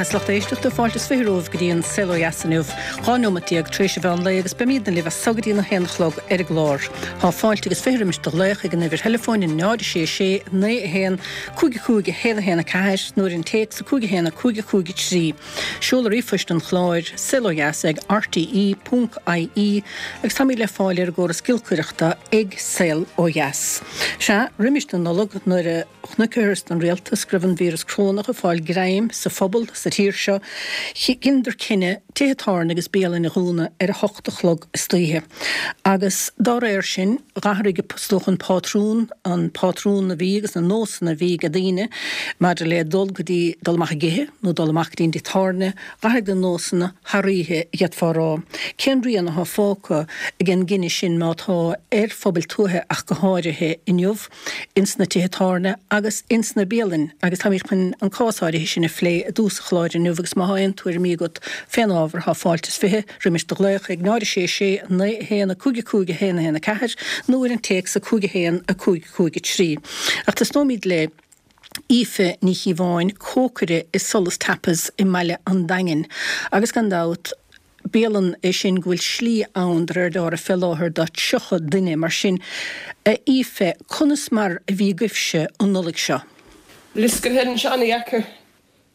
Agus lucht éisteachta, fáilte is 20 romhaibh go dtí an Saol Ó Dheas inniu, 12 neomat tar éis an mheán lae agus beimídne libh as so go dtí an 1 a chlog ar an gclár. Tá fáilte agus 20 roimis do ghlaoch ag an uimhir theileafóin 0 6 6 9 1 5 5 1 1 4 nó ar an téacs 5 1 5 5 3. Seoladh ríomhphoist an chláir, saolodheas ag rte ponc ie agus táimid le fáil ar an gcóras giolcaireachta ag Saol Ó Dheas. Sea, roimis na Nollag nuair a chonaiceathas don rialtas go raibh an víreas corónach ag fáil greim sa phobal sa tír seo, dheineadar cinneadh tithe tábhairne agus bialainn a dhúnadh ar a hocht a chlog istoíche. Agus dá réir sin, dh'athraigh is dócha an pátrún, an pátrún a bhí agus na nósanna a bhí ag daoine maidir le dul go dtí, dul amach ag ithe nó dul amach go dtí an dtigh tábhairne, dh'athraigh na nósanna thar oíche, d'fhéadfá a rá. Cén rian athá fágtha ag an gcinneadh sin, má tá, ar phobail tuaithe ach go háirithe inniu, ins na tithe tábhairne agus ins na bialainn? Agus táimid chun an cás áirithe sin a phlé i dtús an chláir inniu agus má thá aon tuairimí agat fén ábhar, thá fáilte is 20 roimis do ghlaoch ag 0 6 6 9 1 5 5 1 1 4 nó ar an téacs 5 1 5 5 3. Ach tosnóimid le Aoife Ní Chíobháin, cócaire i Solas Tapas i mbaile an Daingin agus gan dabht, bialann é sin go bhfuil slí ann de réir dealraimh fé láthair do 30 duine. Mar sin, a Aoife, conas mar a bhí agaibhse an Nollaig seo? Bhí sé an-dheacair.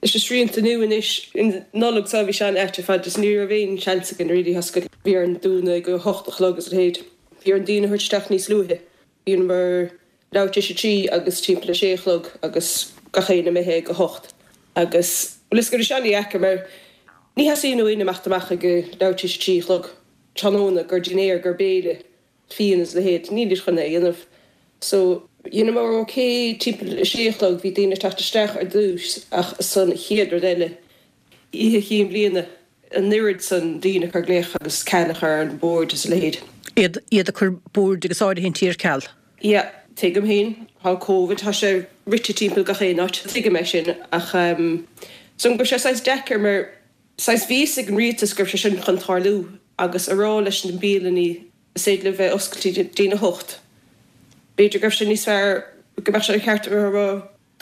Leis na srianta nua anois, an Nollaig seo bhí sé an-ait ar fad just ní raibh aon seans againn really oscailt. Bhí orainn dúnadh ag a hocht a chlog agus a leithéid. Bhí orainn daoine a thabhairt isteach níos luaithe. Bhíomar leathuair tar éis a trí agus timpeall a sé a chlog agus gach éinne imithe ag a hocht. Agus bhuel is go raibh sé an-dheacair mar ní theastaíonn ó éinne imeacht amach ag leathuair tar éis a trí a chlog tráthnóna gur dinnéar, gur béile. fíon is a leithéid, nílid chun é a dhéanamh. So, dheineamar ok timpeall a sé a chlog, bhí daoine ag teacht isteach ar dtús ach san chéad rud eile, Oíche Chinn Bliana, an oiread san daoine ag cur glaoch agus ceal a chur ar na boird is a leithéid. Iad, iad ag cur boird agus áirithintí ar ceal. Yeah, tuigim féin, tá Covid, tá sé rite timpeall gach aon áit, tuigim é sin ach ehm, so go raibh sé saghas deacair mar, Saghas bhí fhios ag an rialtas go raibh sé sin chun tarlú agus a rá leis na bialannaí is féidir libh bheith oscailte go dtí'n 8. B'fhéidir go raibh sé níos fearr go mbeadh sé ceart a rá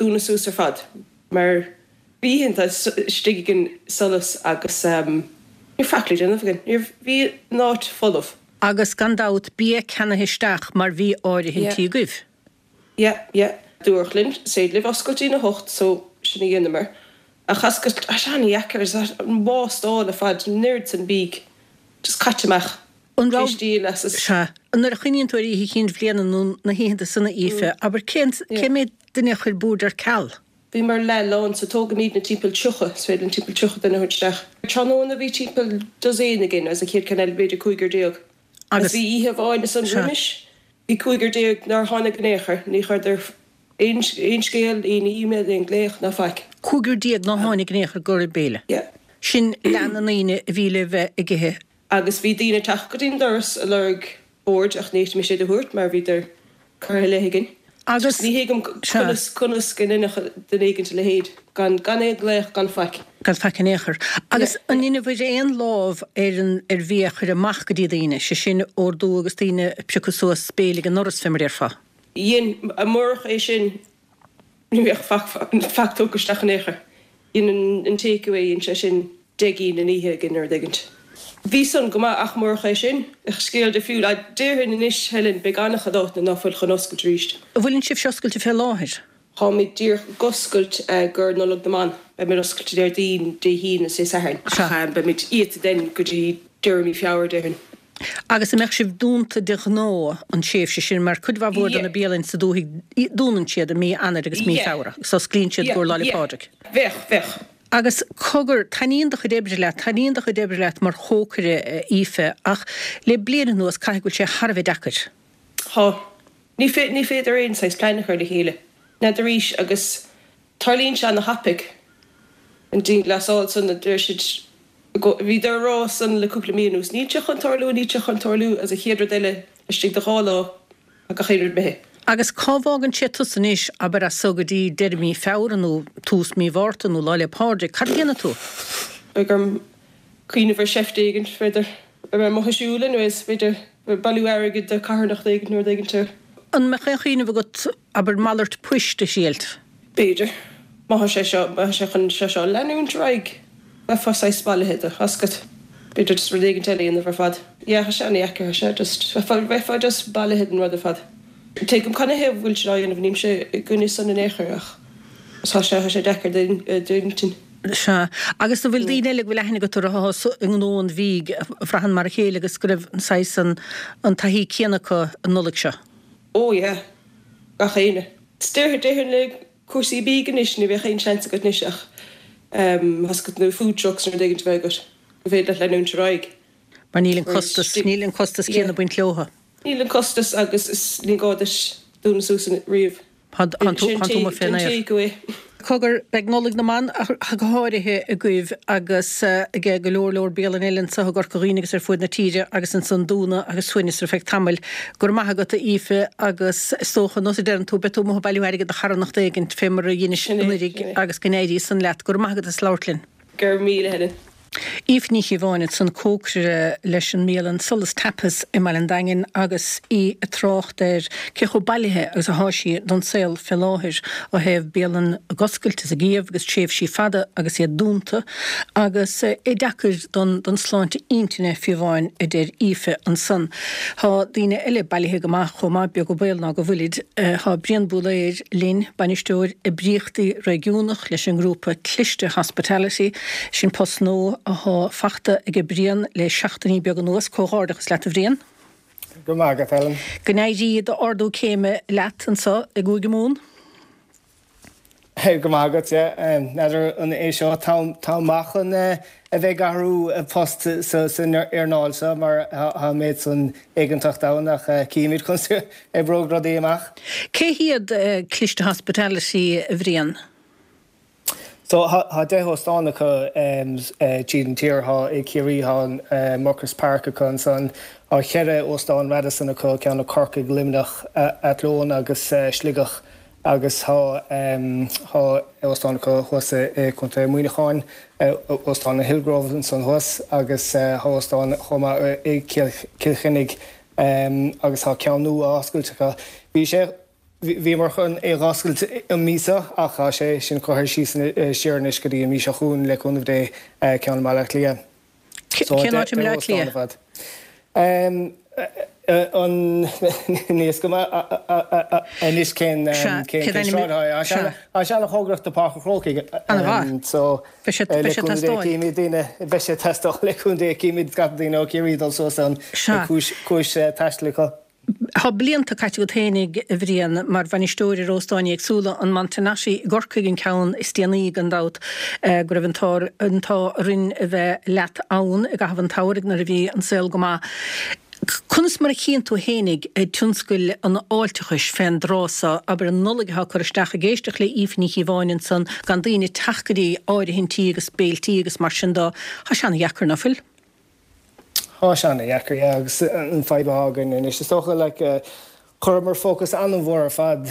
dúnadh suas ar fad mar bhí oícheanta istigh againn i Solas agus ní raibh faic le déanamh againn. Ní raibh, bhí an áit folamh. Agus gan dabht bia ceannaithe isteach mar bhí áirithintí agaibh. Yeah, yeah. Dúradh linn, is féidir libh oscailt dtí'n 8 so sin a dheineamar. Ach oscailt, tá sé an-dheacair, is an wastál ar fad, an oiread san bídh just caite amach, An raibh, díol as is. Sea. Nuair a chuimhníonn tú ar Oíche Chinn Bhliana nó na hoícheanta sona, Aoife, abair, cén, cé mhéad duine a chuir bord ar ceal? Bhíomar leath lán so tógaimidne timpeall 30, is féidir linn timpeall 30 duine a thabhairt isteach. Tráthnóna bhí timpeall dosaen againn agus an chéad ceann eile b'fhéidir cúigear déag. Agus bhí oíche amháin ansan roimis, bhí cúigear déag nár tháinig in aon chor, ní chuireadar aon scéal, aon email, aon glaoch ná faic. Cúigear déag nár tháinig in aon chor go raibh béile. Yeah. Sin leath na ndaoine a bhí le bheith ag ithe. Agus bhí daoine ag teacht go dtí'n doras ag lorg boird ach ní fhéadfaimis iad a thabhairt mar bhíodar curtha i leith againn. Agus, Ní thuigim conas, conas go ndéanfadh duine éigint a leithéid, gan, gan aon ghlaoch, gan faic. Gan faic in aon chor. Agus an ndeineabhair aon lámh ar an, ar bhia a chur amach go dtí daoine, sé sin, ordú agus daoine ag piocadh suas béile ag an ndoras, fé mar a déarfá? Dhein, murach é sin, Ní bheadh faic faic tugtha isteach in aon chor. Dhein an take away, dhein sé sin 10 gcinn in oíche againn nó rud éigint. Bhí san go maith ach murach é sin, bheadh scéal difriúil. Déarfainn anois, Helen, beidh an-chuid áiteanna ná fuil chun oscailt arís. An bhfuileann sibhse oscailte fé láthair? Táimid díreach ag oscailt gur Nollaig na mBan. Beimid oscailte Déardaoin, Dé hAoine is Dé Sathairn ach beimid iata then go dtí deireadh mí Feabhra, déarfainn. Agus an mbeadh sibh dúnta de ghnáth an tréimhse sin mar cuid mhaith mhór de na bialainn sa dúthaigh dúnann siad i mí Eanáir agus mí Feabhra agus osclaíonn siad i gcomhair Lá 'le Pádraig. Bheadh, bheadh. Agus cogar, taitníonn do chuid oibre leat, taitníonn do chuid oibre leat mar chócaire, a Aoife, ach le bliain anuas caithfidh go bhfuil sé thar a bheith deacair. Tá. Ní ní féidir aon saghas plean a chur le chéile. N'fheadar arís agus Tarlaíonn sé ana-thapaidh. An dianghlasáil san a deir siad bhíodar a rá san le cúpla mí anuas, níl sé chun tarlú, níl sé chun tarlú agus an chéad rud eile istigh de dhá lá tá gach aon rud imithe. Agus cá bhfágann sé tusa anois, abair as so go dtí deireadh mí Feabhra nó tús mí Mhárta nó Lá 'le Pádraig, cad a dhéanfaidh tú? Beidh orm cuimhneamh ar sheift éigin, b'fhéidir. Beidh mé amuigh ag siúl anyways, b'fhéidir bailiú airgid do carthanacht éigin nó rud éigin. An mbeadh aon chuimhneamh agat Abair malairt poist a thriailt. B'fhéidir. Má tá sé seo, má tá sé chun sé seo a leanúint ar aghaidh. Bheifeá saghas bailithe de, tá 'fhios agat. B'fhéidir just rud éigin eile a dhéanamh ar fad. Yeah, tá sé ana-dheacair, tá sé just, bheifeá, bheifeá just bailithe den rud ar fad. Tuigim canathaobh a bhfuil siad á dhéanamh, nílimse i gcoinne san in aon chor ach tá sé, tá sé deacair d'intinn. Sea. Agus an bhfuil daoine eile go bhfuil aithne agat orthu atá i ngnó an bhídh a bhraitheann mar a chéile agus go raibh an saghas, an, an taithí céanna acu an Nollaig seo? Oh yeah. Gach éinne. Déarfainn le cúrsaí bídh anois ní bheadh aon seans agat anois ach tá 'fhios agat nó food trucks nó rud éigin a bheith agat go féidir leat leanúint ar aghaidh. Mar níl an costas, níl an costas céanna ag baint leotha. Níl an costas agus is ní gá duit dúnadh suas riamh. Tá tú amuigh fén aer. Cogar, beidh Nollaig na mBan ach go háirithe agaibh agus ag go leor leor bialanna eile anseo i gCorca Dhuibhne agus ar fuaid na tíre agus ansan dúnadh agus suaimhneas ar feadh tamaill. Go raibh maith agat a Aoife agus is dócha, nós a deireann tú, beidh tú amuigh ag bailiú airgid do charthanacht éigint fé mar a dheinis anuiridh agus go n-éirí san leat. Go raibh maith agat as labhairt linn. Go raibh míle Helen. Aoife Ní Chíobháin ansan, cócaire leis an mbialann Solas Tapas i mBaile an Daingin agus í ag trácht ar cé chomh bailithe agus athá sí don saol fé láthair ó thaobh bialann ag oscailt is ag iamh agus tréimhsí fada agus iad dúnta agus é deacair don don sláinte intinne fiú amháin a deir Aoife ansan. Thá daoine eile bailithe go maith chomh maith, beag an baol ná go bhfuilid. Thá Brian Búlaeir linn, Bainisteoir Oibríochtaí Réigiúnach leis an ngrúpa Cliste Hospitality. Sin post nua athá fachta aige Brian le seachtainí beaga anuas. Comhghairdeachas leat a Bhriain. Go raibh maith agat, Ellen. Go n-éirí d'ardú céime leat anso i gCúige Mumhan. Go raibh maith agat, yeah. N'fheadar an é seo an t-am maith chun a bheith ag athrú post san earnáil seo mar tá an méid san éiginnteacht ann ach cífimid conas a oibreoidh rudaí amach. Cé hiad Cliste Hospitality, a Bhriain? So tá 10 óstán acu tríd an tír, tá i Ciarraí, tá an Muckross Park acu ansan, tá cheithre óstán Radisson acu, ceann i Corcaigh, Luimneach, Athlone agus Sligeach agus tá tá óstán acu thuas i Contae Muineacháin, Óstán an Hillgrove ansan thuas agus tá óstán chomh maith i Cill Chainnigh agus tá ceann nua á oscailt acu. Bhí sé. Bhíomar chun é dh'oscailt an mí seo ach tá sé sin curtha síos siar anois go dtí an mí seo chugainn le cúnamh Dé, ceann i mBaile Átha Cliath. Cén áit i mBaile Átha Cliath? An níl fhios agam anois cén sráid atá sé. Tá sé an-chóngarach do Páirc an Chrócaigh. An-mhaith. So Beidh sé le cúnamh Dé címid daoine, beidh sé ag teastáil le cúnamh Dé címid scata daoine ó Chiarraí dul suas ann cúis taistil acu. Tá blianta caite agat fhéinig, a Bhriain, mar bhainisteoir ar óstáin éagsúla, an Montenotte i gCorcaigh an ceann is déanaí, gan dabht, go raibh an t-ádh orainn a bheith leat ann i gcaitheamh an tsamhraidh nuair a bhí an saol go maith. Conas mar a chíonn tú fhéinig tionscal an fháilteachais fén dtráth so, abair an Nollaig atá ag cur isteach, ag éisteacht le Aoife Ní Chíobháin ansan, gan daoine ag teacht go dtí áirithintí agus béiltí agus mar sin dó, tá sé ana-dheacair, ná fuil? Tá sé ana-dheacair, yeah, agus an fadhb atá againn anois, is dócha, like, chuireamar fócas an-mhór ar fad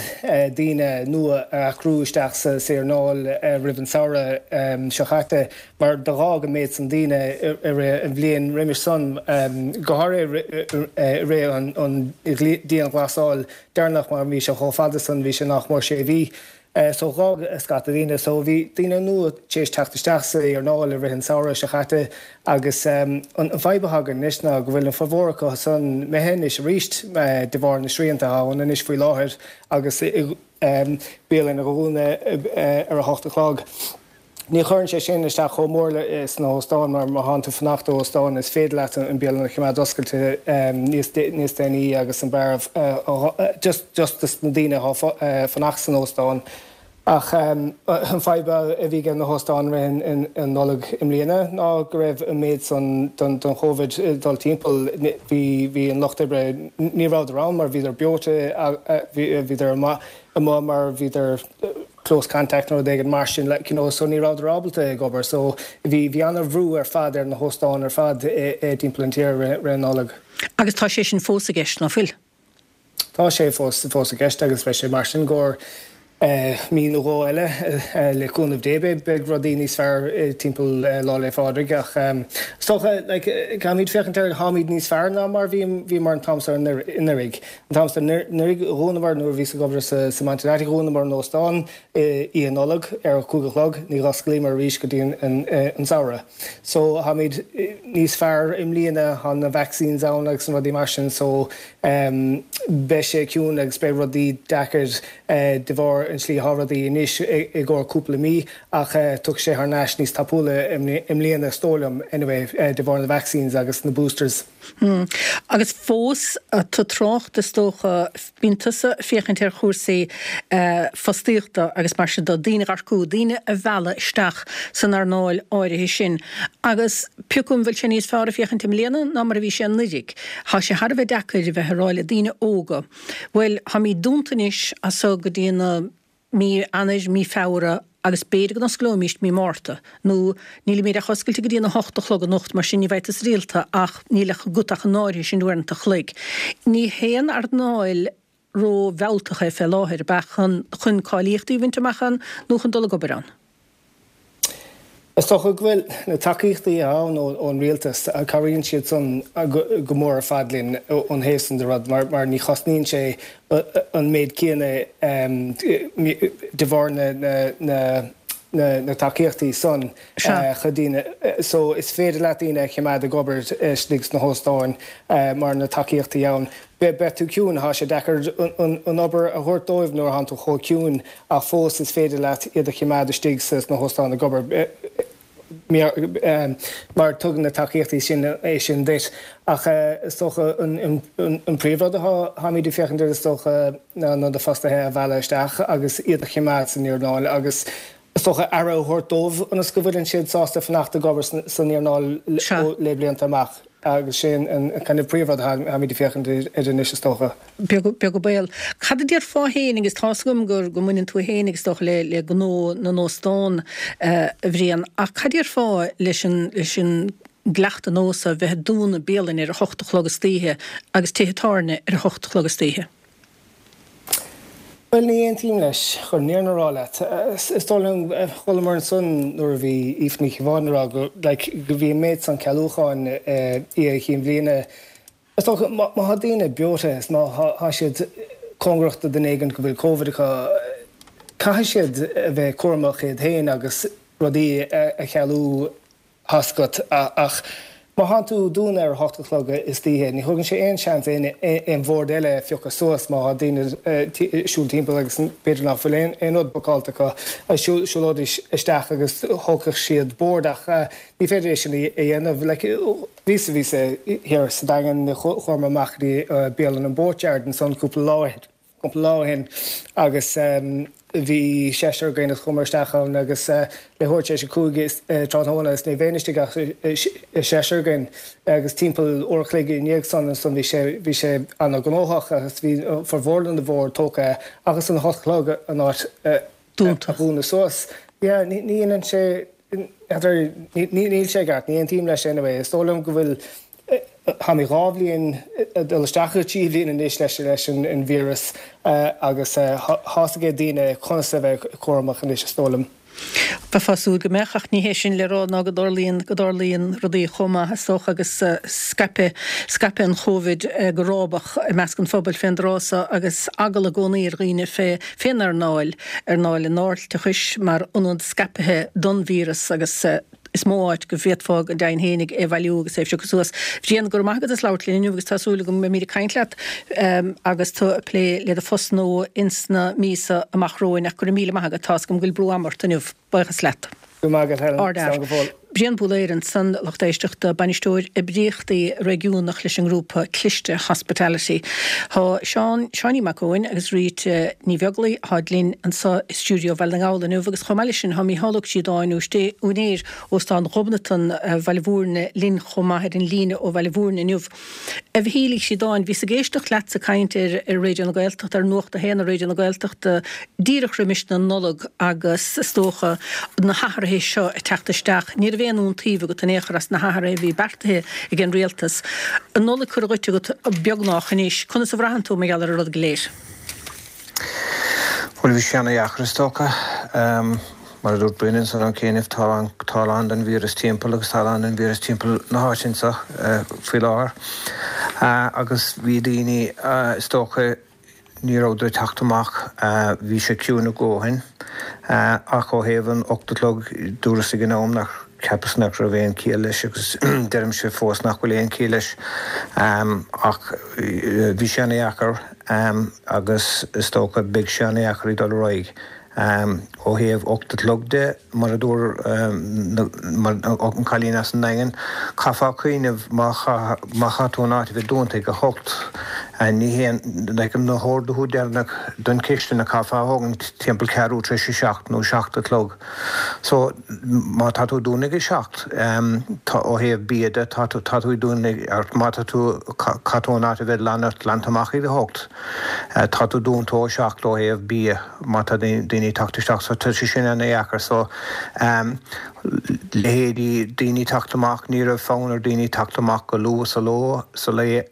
daoine nua a earcú isteach sa earnáil roimh an samhradh seo chaite mar do dh'fhág an méid san daoine i rith an bhliain roimis san, go háirithe i rith an dianghlasáil deireanach mar bhí sé chomh fada san, bhí sé nach mór sé mhí. So dh'fhág scata daoine. So bhí daoine nua tar éis teacht isteach sa earnáil i rith an samhradh seo chaite agus an fadhb atá againn anois ná go bhfuil an formhór acu san imithe anois arís de bharr na srianta atá ann anois faoi láthair agus bialann a dhúnadh ar a hocht a chlog. Ní chuireann sé sin isteach chomh mór sna hóstáin mar má thánn tú fanacht i óstán is féidir leat an bialann a choimeád oscailte níos déanaí agus an beár just just dos na daoine atá fanacht san óstán. Ach an fadhb a bhí ag na hóstáin rith an Nollaig i mbliana ná go raibh an méid san don Chóivid ag dul timpeall bhí bhí an lucht oibre ní rabhadar ann mar bhíodar breoite bhíodar amuigh mar bhíodar close contact nó rud éigin mar sin like you know so ní rabhadar ábalta ag obair so bhí bhí ana-bhrú ar fad ar na hóstáin ar fad i dtimpeall an tír rith an Nollaig. Agus tá sé sin fós i gceist, ná fuil? Tá sé fós fós i gceist agus beidh sé mar sin go. Mí nó dhó eile, le cúnamh Dé, beidh rudaí níos fearr timpeall Lá 'le Phádraig ach is dócha, like, caithfimid féachaint air, táimid níos fearr ná mar bhíomar an t-am seo anuraidh. An t-am seo anuraidh, dhúnamar nuair a bhíos ag obair sa Mountain Attic, dhúnamar an óstán Oíche Nollag ar a cúig a chlog, ní dh'osclaíomar arís go dtí an samhradh. So, táimid níos fearr i mbliana, tá na vaccines ann agus na rudaí mar sin so beidh sé ciúin agus beidh rudaí deacair de bharr an tslí atá rudaí anois i gcomhair cúpla mí ach tiocfaidh sé thar n-ais níos tapúla i mbliana is dóigh liom anyway de bharr na vaccines agus na boosters. Agus fós tú ag trácht is dócha, bíonn tusa ag féachaint ar chúrsaí fostaíochta agus mar sin de, daoine a earcú, daoine a mhealladh isteach san earnáil áirithe sin agus pé acu an bhfuil sé níos fearr ag féachaint i mbliana ná mar a bhí sé anuraidh. Tá sé thar a bheith deacair a bheith ag rá le daoine óga, bhuel, táimid dúnta anois as so go dtí na mí Eanáir, mí Feabhra agus b'fhéidir go n-osclóimíst mí Márta, nó nílimid ach oscailte go dtí an 8 a chlog anocht, mar sin ní bheidh tusa rialta ach níl agat ach an áirithe sin uaireanta a chloig. Ní haon earnáil ró-mhealltach é fé láthair, ab ea, chun chun cáilíochtaí a bhaint amach ann nó chun dul ag obair ann? Is dócha go bhfuil na tacaíochtaí atá ann ón rialtas, cabhraíonn siad san go mór ar fad linn ón thaobh san de rud mar ní chosnaíonn sé an méid céanna de bharr na tacaíochtaí san chun daoine. So is féidir leat daoine a choimeád ag obair istigh sna hóstáin mar na tacaíochtaí ann. Beidh tú ciúin, tá sé deacair an obair a thabhairt dóibh nuair atánn tú chomh ciúin ach fós is féidir leat iad a choimeád istigh sna hóstáin ag obair mar tugann na tacaíochtaí sin é sin duit. Ach is dócha an príomhrud atáimid ag féachaint air is dócha ná na fostaithe a mhealladh isteach agus iad a choimeád san earnáil agus is dócha aire a thabhairt dóibh ionas go bhfuileann siad sásta fanacht ag obair san earnáil le blianta amach agus sin an kind of príomhrud atáimid ag féachaint air anois is dócha. Beag an baol. Cad a déarfá féin, agus tá's agam go mbaineann tú féin is dócha le le gnó na n-óstán, a Bhriain, ach cad a déarfá leis an leis an gcleachtadh nós a bheith ag dúnadh bialainn ar a hocht a chlog istoíche agus tithe tábhairne ar a hocht a chlog istoíche? Bhuel, ní aontaím leis, chun an fhírinne a rá leat. Is dóigh liom, chualamar ansan nuair a bhí Aoife Ní Chíobháin ag rá go, like, go bhí an méid san cealúcháin Oíche Chinn Bhliana. Is dócha, má tá daoine breoite is má tá siad cóngarach do duine éigin go bhfuil Covid acu, caithfidh siad a bheith cúramach iad féin agus rudaí a chealú. Tá's agat, ach má thánn tú ag dúnadh ar a hocht a chlog istoíche, ní thugann sé aon seans aon bhord eile a phiocadh suas má tá daoine ag siúl timpeall agus b'fhéidir nach bhfuil aon rud bookáilte acu, siúlóidís isteach agus thógfadh siad bord ach ní féidir é sin a dhéanamh. Like, bhíos, bhíos thiar sa Daingean, chuamar amach go dtí bialann an Boatyard ansan cúpla lá ó shin. cúpla lá ó shin agus bhí seisear againn agus chuamar isteach ann agus leathuair tar éis a 5 tráthnóna is ní raibh istigh ach seisear againn agus timpeall uair a chloig i ndiaidh san ansan bhí sé bhí sé ana-ghnóthach agus bhí formhór na mbord tógtha agus an hocht a chlog an áit a dhúnadh suas. Yeah ní dhéanann sé n'fheadar níl sé i gceart ní aontaím leis anyway is dóigh liom go bhfuil Táimid 2 bhliain, ag dul isteach i dtrí bhliain anois leis an víreas agus tá's ag daoine conas a bheith cúramach anois is dóigh liom. Bheifeá ag súil go mbeadh, ach ní hé sin le rá ná go dtarlaíonn, go dtarlaíonn rudaí chomh maith is dócha agus scaipeadh, scaipeadh an Chóivid go rábach i measc an phobail fén dtráth so agus eagla i gcónaí ar dhaoine fé, fén earnáil, earnáil an fháilteachais mar ionad scaipthe don víreas agus. Is mó áit go bhféadfá go deimhin fhéinig é a bhailiú agus é a phiocadh suas. Bhriain, go raibh maith agat as labhairt linn inniu agus tá súil agam go mbeimid ag caint leat agus tú ag plé le do phost nua ins na míosa amach romhainn ach go raibh míle maith agat, tá's agam go bhfuil brú ama ort inniu. Buíochas leat. Go raibh maith agat Helen. Slán go fóill. Brian Búlaeir ansan, lucht éisteachta, Bainisteoir Oibríochtaí Réigiúnach leis an ngrúpa Cliste Hospitality. Tá Seán, Seáinín Mac Eoin agus Rita Ní Bheaglaoi tháid linn anso i stiúideo Bhaile na nGall inniu agus chomh maith leis sin tá Mícheál Ó Críodáin, úinéir Óstán Ghobnatan Bhaile Mhúirne linn chomh maith ar an líne ó Bhaile Mhúirne inniu. A Mhichíl Uí Chríodáin, bhíos ag éisteacht leatsa ag caint ar ar Raidió na Gaeltachta, ar Nuacht a hAon ar Raidió na Gaeltachta díreach roimis na Nollag agus is dócha na hathruithe seo ag teacht isteach. Ní raibh aon iontaoibh agat in aon chor as na hathruithe a bhí beartaithe ag an rialtas. An Nollaig curtha dhuit agat beagnach anois. Conas a bhraitheann tú mar gheall ar an rud go léir? Bhuel, bhí sé ana-dheacair is dócha. Mar a dúirt Brendan ansan ó chianaibh, tá tá a lán den víreas timpeall agus tá a lán den víreas timpeall na háite anseo faoi láthair. Agus bhí daoine is dócha, ní rabhadar ag teacht amach, bhí sé ciúin a dhóthain. Ach ó thaobh an 8 a chlog, dúras ag an am nach, cheapas nach raibh aon chiall leis agus deirimse fós nach bhfuil aon chiall leis. Ach bhí sé ana-dheacair agus is dócha beidh sé ana-dheacair ag dul ar aghaidh. Ó thaobh 8 a chlog de, mar a dúirt an cailín as an nDaingean, chaithfeá cuimhneamh má chaithfidh tú an áit a bheith dúnta ag a hocht, ní haon, like, na horduithe deireanach don chistin a chaithfeá a thógaint timpeall ceathrú tar éis a seacht nó seacht a chlog. So, má tá tú ag dúnadh ag a seacht, tá, ó thaobh bia de, tá tú, tá tú ag dúnadh, má tá tú, caithfidh tú an áit a bheith glanta amach ag a hocht, tá tú dúnta ó seacht ó thaobh bia. má tá daoine ag teacht isteach so tá sé sin ana-dheacair so leithéidí daoine ag teacht amach ní raibh fonn ar daoine teacht amach go luath sa ló sa lae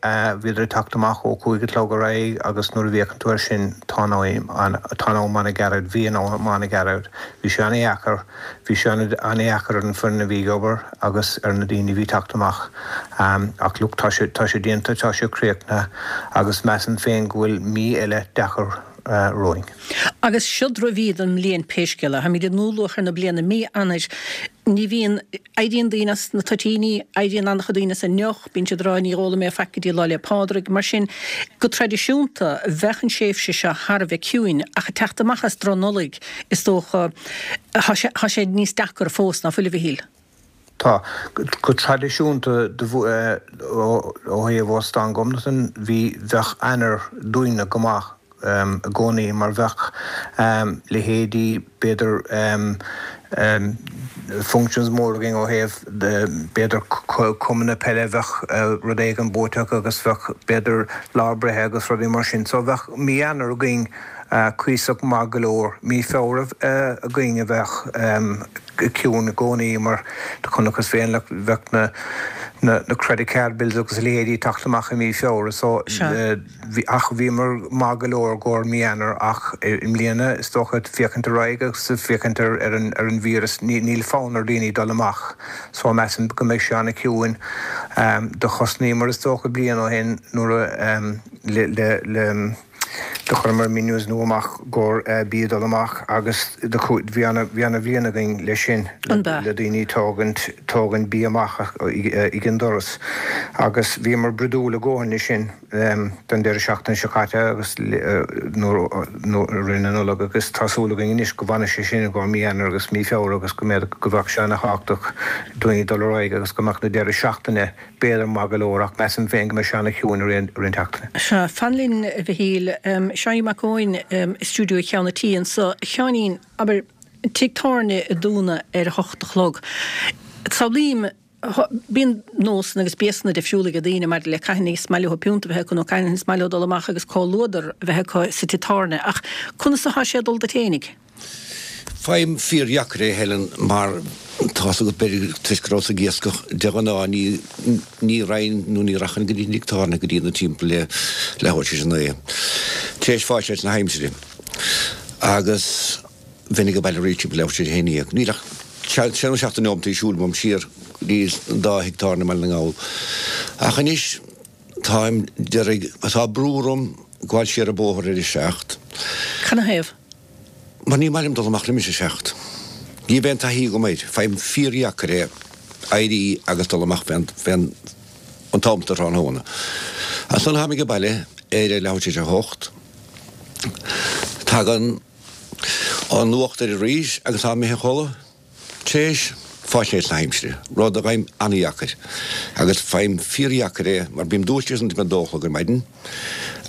bhíodar ag teacht amach ó 5 a chlog ar aghaidh agus nuair a bhféachann tú air sin tá an tá an am ana-ghairid bhí an am ana-ghairid bhí sé ana-dheacair bhí sé ana-dheacair ar an foireann a bhí ag obair agus ar na daoine a bhí ag teacht amach ach look tá sé tá sé déanta tá sé críochnaithe agus measaim féin go bhfuil mí eile deacair romhainn. Agus seod roimh mhí don mbliain pé scéal é. Táimid i ndúluachair na bliana, mí Eanáir. Ní bhíonn, éiríonn daoine as na toitíní, éiríonn an-chuid daoine as an ndeoch, bíonn siad ag rá ní ólfaidh mé faic go dtí Lá 'le Pádraig. Mar sin, go traidisiúnta, bheadh an tréimhse seo thar a bheith ciúin, ach ag teacht amach as Droch-Nollaig, is dócha, tá sé, tá sé níos deacra fós, ná fuil, a Mhichíl? Tá. Go traidisiúnta ó thaobh Óstán Ghobnatan bhí, bheadh Eanáir dúinne go maith i gcónaí mar bheadh leithéidí b'fhéidir functions mór againn ó thaobh b'fhéidir cumanna peile bheadh rud éigin buaite acu agus bheadh b'fhéidir lá breithe agus rudaí mar sin. So bheadh mí Eanáir againn cuíosach maith go leor. Mí Feabhra againn a bheadh ciúin i gcónaí mar do chonacthas féin like bheadh na na credit card bills agus a leithéidí ag teacht amach i mí Feabhra so bhí ach bhíomar maith go leor i gcomhair mí Eanáir ach i mbliana is dócha féachaint ar aghaidh agus féachaint ar ar an ar an víreas ní níl fonn ar daoine dul amach so measaim go mbeidh sé an-chiúin. Do chosnaíomar is dócha bliain ó shin nuair a le le le Do chuireamar menus nua amach i gcomhair bia dul amach agus do bhí ana bhí ana bhliain againn leis sin An b'ea? le daoine tógaint tógaint bia amach ag an doras agus bhíomar brodúil a dhóthain leis sin don deireadh seachtaine seo caite agus nuair nuair rith na Nollag agus tá súil againn anois go bhfanfaidh sé sin i gcomhair mí Eanáir agus mí Feabhra agus go mbeadh go bheadh sé ana thábhachtach daoine dul ar aghaidh agus go mbeadh na deireadh seachtaine b'fhéidir maith go leor ach measaim féin go mbeidh sé ana-chiúin i rith an tseachtaine. Sea, fan linn, a Mhichíl. Seáinín Mac Eoin i stiúideo cheann an tí anso. A Sheáinín, abair, tigh tábhairne ag dúnadh ar a hocht a chlog. Samhlaím, bíonn nósanna agus béasanna difriúla ag daoine maidir le cathain is maith leo piúnta a bheith acu nó cathain is maith leo dul amach agus comhluadar a bheith acu sa tigh tábhairne ach conas atá sé ag dul duit fhéinig? Faighim fíordheacair é, Helen, mar tá's agat, b'fhéidir toisc go rabhas ag iascach, de ghnáth ní, ní raghainn nó ní rachainn go dtí an tigh tábhairne go dtí na timpeall le leathuair tar éis a naoi, tar éis fáil na haimsire. Agus bheinn ag baile arís timpeall leathuair tar éis a haon dhéag. Níl ach sé nó seacht de neomataí siúil uaim siar go dtí an dá thigh tábhairne i mBaile na nGall. Ach anois táim, déarfainn, tá brú orm gabháil siar an bóthar ar a seacht. Canathaobh? Mar ní maith liom dul amach roimis a seacht. Ní bheidh aon taithí agam air. Faighim fíordheacair é éirí agus dul amach fén, fén, an t-am sa tráthnóna. Ansan táim age baile ar a leathuair tar éis a hocht. Tagann an nuacht air arís agus táim imithe a chodladh. Tréis faisnéis na haimsire, rud a fhaighim an-dheacair, agus faighim fíordheacair é mar bím dúisithe ansan timpeall a dó a chlog ar maidin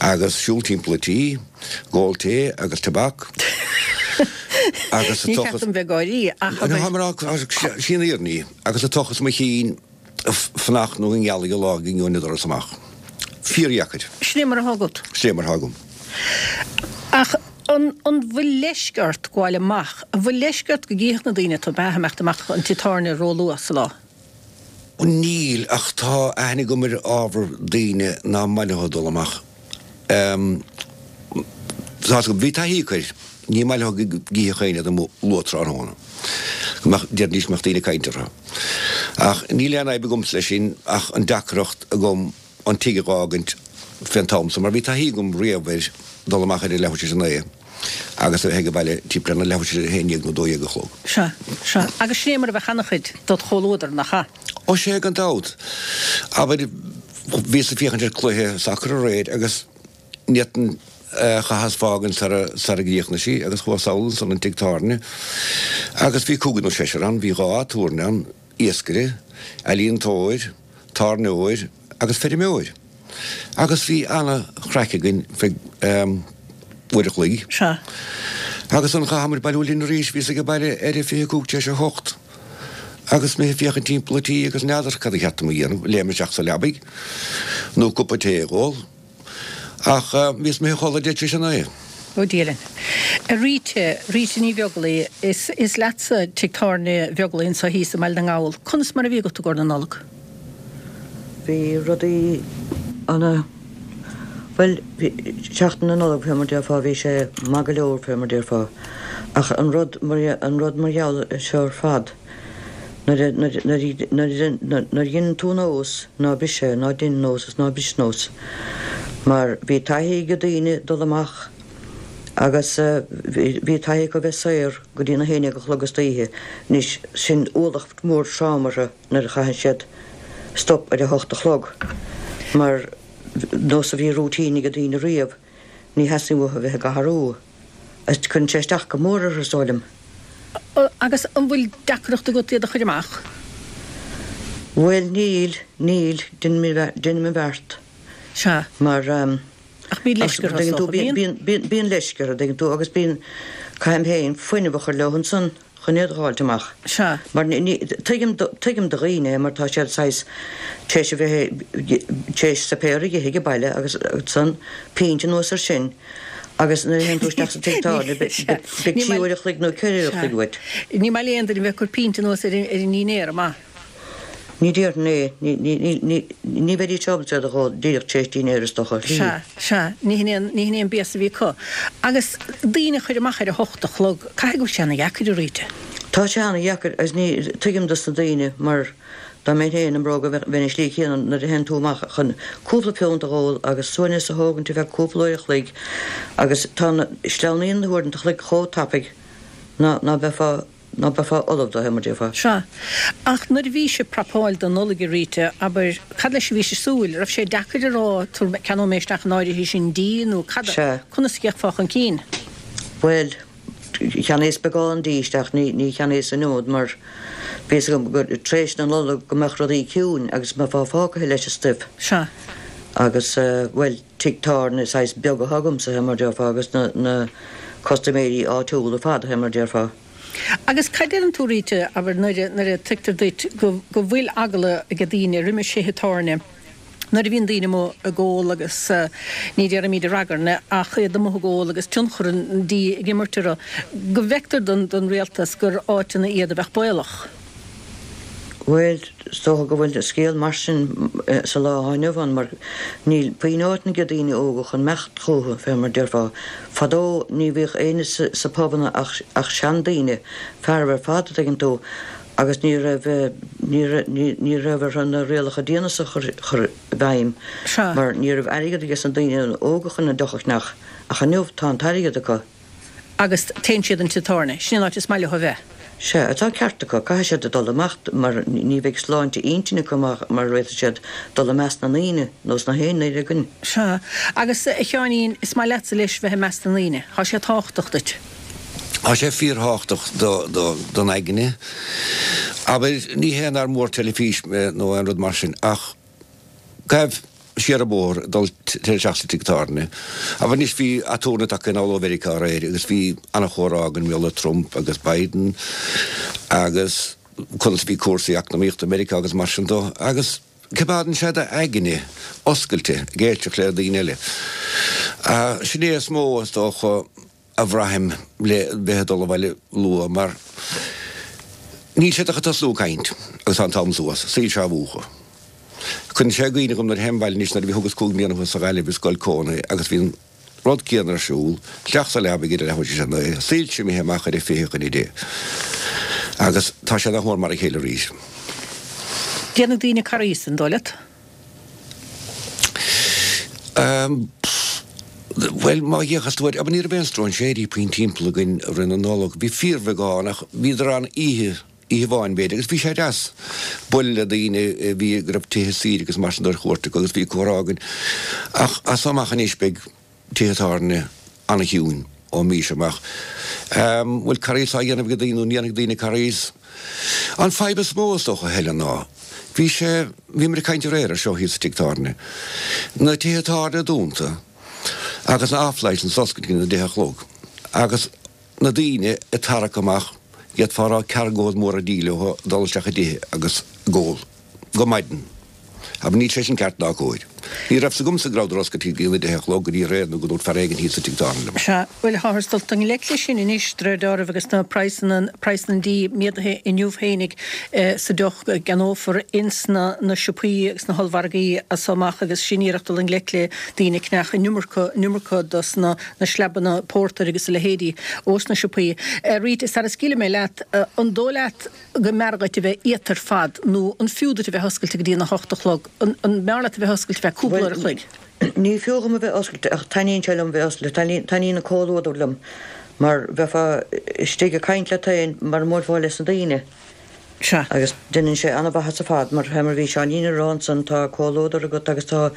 agus siúl timpeall an tí, ag ól tae agus tobac agus Ní ceart dom bheith ag gáirí ach abair. Tá mé ag rá, sí an fhírinne í, agus ag tochas mo chinn fanacht nó go ngealfaidh an lá go ngeobhainn an doras amach. Fíordheacair. Sin é mar atá agat. Sin é mar atá agam. Ach an an bhfuil leisce ort gabháil amach? An bhfuil leisce ort go gcífeadh na daoine tú ag imeacht amach an tigh tábhairne róluath sa lá? Níl, ach tá aithne agam ar ábhar daoine ná maith leo dul amach. Tá, bhí taithí acu air. Ní maith leo go gcífeadh éinne iad amuigh luath tráthnóna. Go mbeadh, déarfaidís go mbeadh daoine ag caint orthu. Ach níl aon fhadhb agamsa leis sin ach an deacracht agam an tigh a dh'fhágaint fén t-am so mar bhí taithí agam riamh ar dul amach ar a leathuair tar éis a naoi agus a bheith ag baile timpeall ar na leathuair tar éis a haon dhéag nó dó dhéag a chlog. Sea, sea. Agus sin é mar a bheadh ana-chuid dod chomhluadar, nach ea? Ó sea, gan dabht. Abair, bhíos ag féachaint ar cluiche sacair aréir agus ní fhéadfainn chaitheas fágaint sara sara gcríochnaigh sí agus chuas sall ansan an tigh tábhairne agus bhí cúigear nó seisear ann, bhí dhá aturnae ann, iascaire, ealaíontóir, tábhairneoir agus feirmeoir. Agus bhí ana-chraic againn feadh uair a chloig. Sea. Agus ansan chaitheamair bailiú linn arís, bhíos ag baile ar a 25 tar éis a hocht agus mé ag féachaint timpeall an tí agus n'fheadar cad a cheart dom a dhéanamh, léim isteach sa leabaidh nó cupa tae a dh'ól. Ach bhíos imithe a chodladh 9:20 tar éis a naoi. Ó Dia linn. A Rita, Rita Ní Bheaglaoi, is, is leatsa tigh tábhairne Bheaglaoi anseo thíos i mBaile na nGall. Conas mar a bhí agat i gcomhair na Nollag? Bhí rudaí ana, bhuel, bhí, seachtain na Nollag fé mar déarfá, bhí sé maith go leor fé mar déarfá. Ach an rud mar, an rud mar gheall ar seo ar fad, Nuair a dheineann tú nós, ná bris é, ná dein nós is ná bris nós. Mar bhí taithí ag daoine dul amach agus bhí taithí acu bheith saor go dtí na haon déag a chlog istoíche. Anois, sin ualach mór trom orthu nuair a chaitheann siad stop ar a hocht a chlog. Mar nós a bhí routine ag daoine riamh, ní theastaíonn uathu a bheith ag athrú. Agus cuireann sé isteach go mór orthu, is dóigh liom. Agus an bhfuil deacracht agat iad a chur amach? Bhuel, níl, níl, deinim mo bheart. Sea. Mar, Ach bíonn leisce orthu, is dócha, bíonn? Bíonn, bíonn leisce orthu, dtuigeann tú, agus bíonn, caithim féin fuinneamh a chur leo ansan. chun iad a dh'fháilt amach. Sea. Mar ní, tuigim, tuigim do dhaoine é mar tá siad saghas tar éis a bheith, tar éis suipéar a dh'ithe ag baile agus ansan pínt anuas ar sin agus nuair a théann tú isteach sa tigh tábhairne beidh trí uair a chloig nó ceithre uair a chloig uait. Ní maith le aon duine bheith ag cur pínt anuas ar an ndinnéar, an maith? Ní déarfainn é. Ní, ní, ní, ní, ní bheidís ábalta iad a dh'ól díreach tar éis dinnéir is dócha. Sea, sea, ní hin é an, ní hin é an béas a bhí acu. Agus daoine a chur amach ar a hocht a chlog, caithfidh go bhfuil sé ana-dheacair, a Rita. Tá sé ana-dheacair agus ní, tuigim dos na daoine mar dá mbeinn féin i mbróga bheinn an slí chéanna nuair a théann tú amach chun cúpla piúnt a dh'ól agus suaimhneas a thógaint ar feadh cúpla uair a chloig agus tá na, sleamhnaíonn na huaireanta a chloig chomh tapaidh ná, ná beifeá ná beifeá ullamh dó, mar déarfá. Sea. Ach nuair a bhí sibh ag prapáil don Nollaig, a Rita, abair, cad leis a bhí sibh ag súil? Raibh sé deacair a rá, tabhair, ceannóidh mé isteach an áirithe sin dí nó cad a, Sea. conas a d'fhéachfá chun cinn? Bhuel, cheannaíos beagán dí isteach, ní, ní cheannaíos an iomad mar bhí fhios agam gur tar éis na Nollag go mbeadh rudaí ciúin agus mbeifeá fágtha leis an stuif. Sea. Agus, bhuel, tigh tábhairne saghas beag atá agamsa, fé mar déarfá, agus na, na custaiméirí áitiúla ar fad, fé mar déarfá. Agus cad deireann tú, Rita, abair, nuair a, nuair a tuigtear duit go, go bhfuil eagla ag daoine roimis thithe tábhairne, nuair a bhíonn daoine amuigh ag ól agus, ní déarfaimid ag ragairne, ach iad amuigh ag ól agus tionchar an dí ag imirt orthu, go bhfeictear don, don rialtas gur áiteanna iad a bheadh baolach? Bhuel, is dócha go bhfuil scéal mar sin sa lá atá inniu ann mar níl puinn áiteanna ag daoine óga chun imeacht chucu, fé mar déarfá. Fadó ní bhíodh éinne sa pubanna ach ach seandaoine, fearaibh ar fad, a dtuigeann tú, agus ní raibh ní raibh ní raibh orthu na rialacha diana so a chur chur i bhfeidhm mar ní raibh airgead ages na daoine óga chun an deoch a cheannach ach inniu tá an t-airgead acu. agus téann siad an tigh tábhairne. Sin an áit is maith leo a bheith. Sea, tá an ceart acu. Caithfidh siad a dul amach mar ní bheidh sláinte intinne acu mura bhféadfaidh siad dul i measc na ndaoine, nós na haon duine againn. Sea. Agus, a Sheáinín, is maith leatsa leis bheith i measc na ndaoine. Tá sé tábhachtach duit. Tá sé fíorthábhachtach don aigne. Abair, ní hé nár mór teilifís mé nó aon rud mar sin ach gabh siar an bóthar ag dul isteach sa tigh tábhairne. Abair anois bhí aturnae tagtha anall ó Mheiriceá aréir agus bhí ana-chomhrá againn mar gheall ar Trump agus Biden agus conas a bhí cúrsaí eacnamaíochta i Meiriceá agus mar sin dó agus coimeádann sé d'aigne oscailte ag éisteacht le daoine eile. Sin é is mó is dócha a bhraithim le bheith ag dul abhaile luath mar níl siad ach ag tosnú ag caint agus tá an t-am suas, soilse á mhúchadh. Cuireann sé i gcuimhne dhom nuair a théim abhaile anois nuair a bhí thugas 5 mbliana thuas sa Ghaillimh i scoil cónaithe agus bhí an. rud céanna ar siúl, isteach sa leaba ag a leathuair tar éis a naoi, soilse imithe amach ar a 9:40. Agus tá sé nach mór mar a chéile arís. Déanfaidh daoine corraí, an dóigh leat? Bhuel, má fhéachas tú air, ní raibh aon stróinséirí puinn timpeall againn i rith na Nollag. Bhí fíorbheagán ach bhíodar ann oíche, oíche amháin b'fhéidir, agus bhí sé deas bualadh le daoine a bhí, go raibh tithe saoire agus mar sin de ar chuairt acu agus bhí comhrá againn. Ach as so amach anois beidh tithe tábhairne an-chiúin ón mí seo amach. Bhfuil corraíos á dhéanamh ag daoine nó ní dhéanfaidh daoine corraíos? An fadhb is mó is dócha, Helen, ná bhí sé, bhíomar ag caint aréir ar seo thíos sa tigh tábhairne, na tithe tábhairne dúnta agus na off license oscailte go dtí a deich a chlog agus na daoine ag tarrac amach, d'fhéadfá a rá ceargóid móra dí leo ag dul isteach i dtithe agus ag ól. Go maidin. Abair, níl sé sin ceart ná cóir. Ní raibh 's agamsa go rabhadar oscailte go dtí a deich a chlog go dtí aréir nó go ndúirt fear éigin thíos sa tigh tábhairne liom. Sea, bhuel, táthar ag dul i ngleic leis sin anois, de réir dealraimh, agus na praghsanna, praghsanna an dí méadaithe inniu fhéinig sa deoch go gceannófar ins na na siopaí agus na hollmhargaí as so amach agus sin iarracht dul i ngleic le daoine ag ceannach an iomarca, an iomarca dos na na sleabanna pórtair agus a leithéidí ós na siopaí. Rita, sara scaoilfidh mé leat, an dóigh leat, go mb'fhearr dhuit a bheith iata ar fad nó an fiú duit a bheith oscailte go dtí an 8 a chlog? An mb'fhearr leat a bheith oscailte feadh cúpla uair a chloig? Bhuel, ní fiú dhom a bheith oscailte ach taitníonn sé liom bheith oscailte, taitníonn an comhluadar liom mar bheifeá istigh ag caint leat féin mar a mbuailfeá leis na daoine. Sea. Agus deineann sé an-mhaitheas ar fad mar fé mar bhí Seáinín ag rá ansan tá comhluadar agat agus tá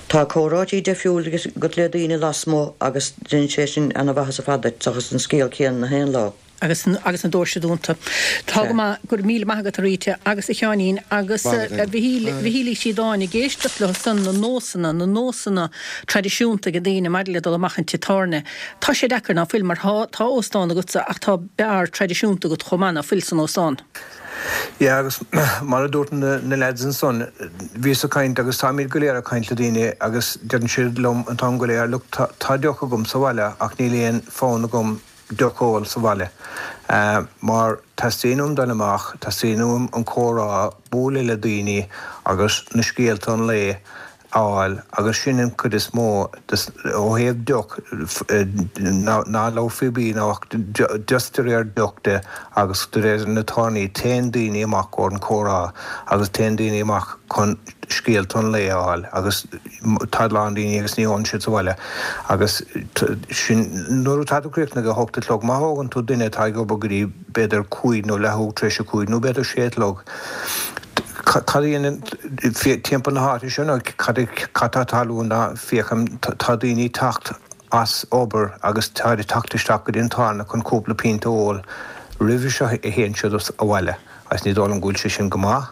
tá comhráití deifriúil agat le daoine lasmuigh agus deineann sé sin an-mhaitheas ar fad duit seachas an scéal céanna na haon lá. agus agus na doirse dúnta. Tá go maith, go raibh míle maith agat a Rita agus a Sheáinín agus a Mhichíl, Mhichíl Uí Chríodáin ag éisteacht leo san, na nósanna, na nósanna traidisiúnta ag daoine maidir le dul amach an tigh tábhairne. Tá sé deacair, ná fuil, mar tá, tá óstán agatsa ach tá beár traidisiúnta agat chomh maith, ná fuil, san óstán? Yeah agus mar a dúirt na lads ansan, bhíos ag caint agus táimid go léir ag caint le daoine agus deireann siad liom an t-am go léir, look tá, tá deoch agam sa bhaile ach níl aon fonn agam deoch a ól sa bhaile mar teastaíonn uaim dul amach, teastaíonn uaim an comhrá, bualadh le daoine agus na scéalta an lae a fháil agus sin an chuid is mó ó thaobh deoch, ná labhair faoi bia ná ach just de réir deoch de agus de réir na tábhairní, téann daoine amach ar an comhrá agus téann daoine amach chun scéalta an lae a fháil agus tá a lán daoine agus ní ólann siad sa bhaile agus sin nuair atá tú críochnaithe ag a hocht a chlog má thógann tú duine atá ag obair go dtí b'fhéidir cúig nó leathuair tar éis a cúig nó b'fhéidir sé a chlog cad a dhéanann timpeall na háite seo nó cad cad tá ag tarlú ná féachaim tá daoine ag teacht as obair agus táid ag teacht isteach go dtí an tábhairne chun cúpla pionta a ól roimhe seo a théann siad abhaile agus ní dóigh liom go bhfuil sé sin go maith.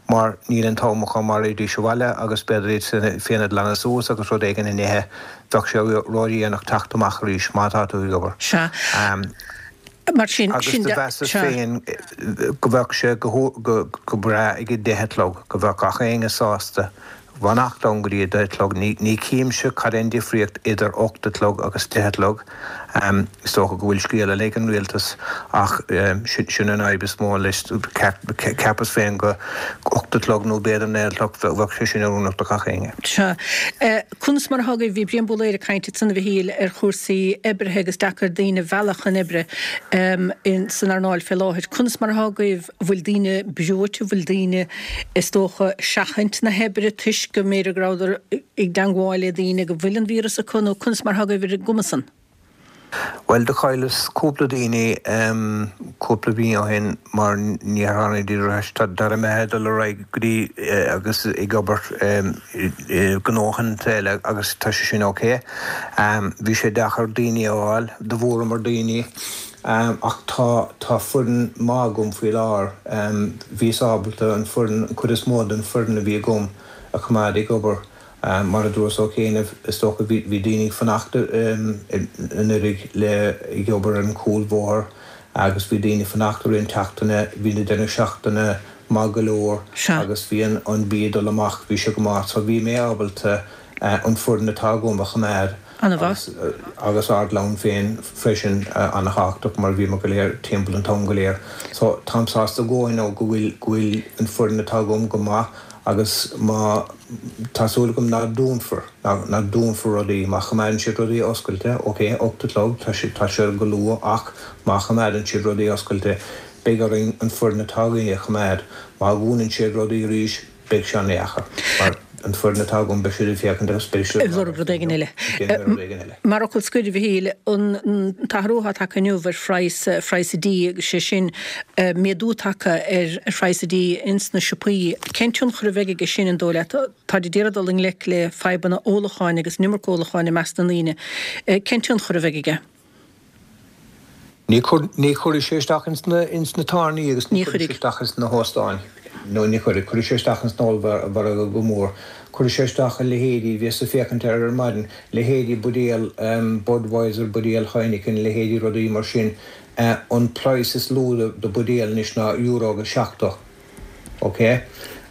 mar níl an t-am acu mar raghaidís abhaile agus b'fhéidir iad féin a ghlanadh suas agus rud éigin a n-ithe, bheadh sé ródhéanach teacht amach arís má tá tú ag obair. Sea. Mar sin, Agus sin do de, mheasas sea. féin go bheadh sé go go breá ag a deich a chlog, go bheadh gach éinne sásta fanacht ann go dtí a deich a chlog. Ní chímse cad é an difríocht idir 8 a chlog agus 10 a chlog. Is dócha go bhfuil scéal eile ag an rialtas ach sin an fhadhb is mó leis. Cheapas féin go 8 a chlog nó b'fhéidir 9 a chlog bheadh sé sin oiriúnach do gach éinne. Sea. Conas mar atá agaibh? Bhí Brian Búlaeir ag caint ansan a Mhichíl ar chúrsaí oibrithe agus deacair daoine a mhealladh chun oibre san earnáil fé láthair. Conas mar atá agaibh? Bhfuil daoine breoite, bhfuil daoine, is dócha, seachaint na hoibre toisc go mb'fhéidir go rabhadar i dteangmháil le daoine go bhfuil an víreas acu nó conas mar atá agaibh ar an gcuma san? Bhuel, do chailleas cúpla daoine cúpla mí ó shin mar níor tháinigídís ar ais. Tá imithe ag dul ar aghaidh go dtí agus ag obair i ngnóthanta eile agus tá sé sin ok. Bhí sé deacair daoine a fháil, do bhuaireamar daoine. Ach tá, tá foireann maith agam faoi láthair. Bhíos ábalta an foireann, an chuid is mó den foireann a bhí agam a choimeád ag obair. Mar a dúras ó chianaibh, is dócha bhí, bhí daoine ag fanacht anuraidh le, ag obair ar an chúlbhóthar agus bhí daoine ag fanacht i rith an tseachtaine, bhí na deireadh seachtaine maith go leor agus bhí an, an bia ag dul amach, bhí sé go maith. So bhí mé ábalta an foireann atá agam a choimeád. An-mhaith. Agus ár gclann féin freisin an-thábhachtach mar bhíomar go léir timpeall an t-am go léir. So táim sásta go nó go bhfuil go bhfuil an foireann atá agam go maith. Agus má, tá súil agam ná dúnfar, ná dúnfar rudaí, má choimeádann siad rudaí oscailte, ok, 8 a chlog, tá sé, tá sé go luath ach má choimeádann siad rudaí oscailte, beidh orainn an foireann atá againn a choimeád. Má dhúnann siad rudaí arís, beidh sé an-dheacair mar an foireann atá agam, beidh siad ag féachaint agus beidh siad ag lorg rud éigin eile. Rud éigin eile. Mar fhocal scoir, a Mhichíl, an t-athrú atá tagtha inniu ar phraghas, phraghas an dí agus sé sin méadú tagtha ar phraghas an dí ins na siopaí, cén tionchar a bheidh aige sin, an dóigh leat? Táid ag iarraidh dul i ngleic le fadhbanna ólacháin agus an iomarca ólacháin i measc na ndaoine. Cén tionchar a bheidh aige? Ní chuirfidh sé isteach ins na tábhairní agus ní chuirfidh sé isteach ins na hóstáin. No, ní chuirfidh. Cuirfidh sé isteach ins an ollmhargadh go mór. Cuirfidh sé isteach a leithéidí, bhíos ag féachaint air ar maidin, leithéidí buidéal Budweiser, buidéal Heineken, leithéidí rudaí mar sin. An praghas is lú do buidéal anois ná euro agus 70. Ok?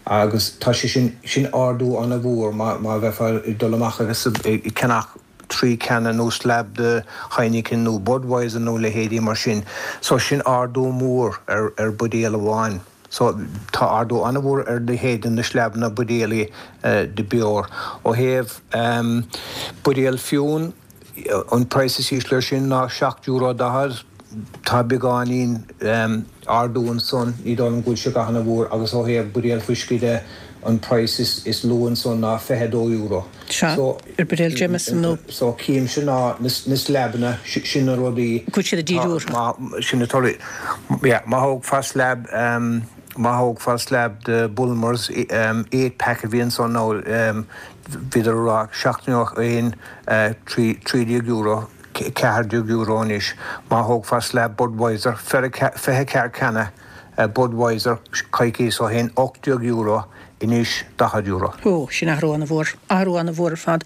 Agus tá sé sin, sin ardú ana-mhór má bheifeá ag dul amach agus ag ceannach 3 canna nó slab de Heineken nó Budweiser nó leithéidí mar sin. So sin ardú mór ar ar buidéal amháin. So tá ardú an-mhór ar leithéid de na sleabanna buidéalaí de beoir. Ó thaobh buidéal fíon, an praghas is ísle ar sin ná €7.40. Tá beagáinín ardú ansan, ní dóigh liom go bhfuil sé a dhath ana-mhór agus ó thaobh buidéal fuiscí de, an praghas is lú ansan ná €22. Sea, So, ar buidéal Jameson nó. So, címse ná na sleabanna, sin na rudaí. Go bhfuil siad ag díriú orthu. Má, sin na torthaí. Yeah, má thógfá slab, má thógfá slab de Bulmers, 8 pack a bhí ansan nó bhíodar ag rá 71, €13, €14 anois. Má thógfá slab Budweiser, 24 canna Budweiser coicíos ó shin, €18. Anois €40. Ó, sin athrú ana-mhór. Athrú ana-mhór ar fad.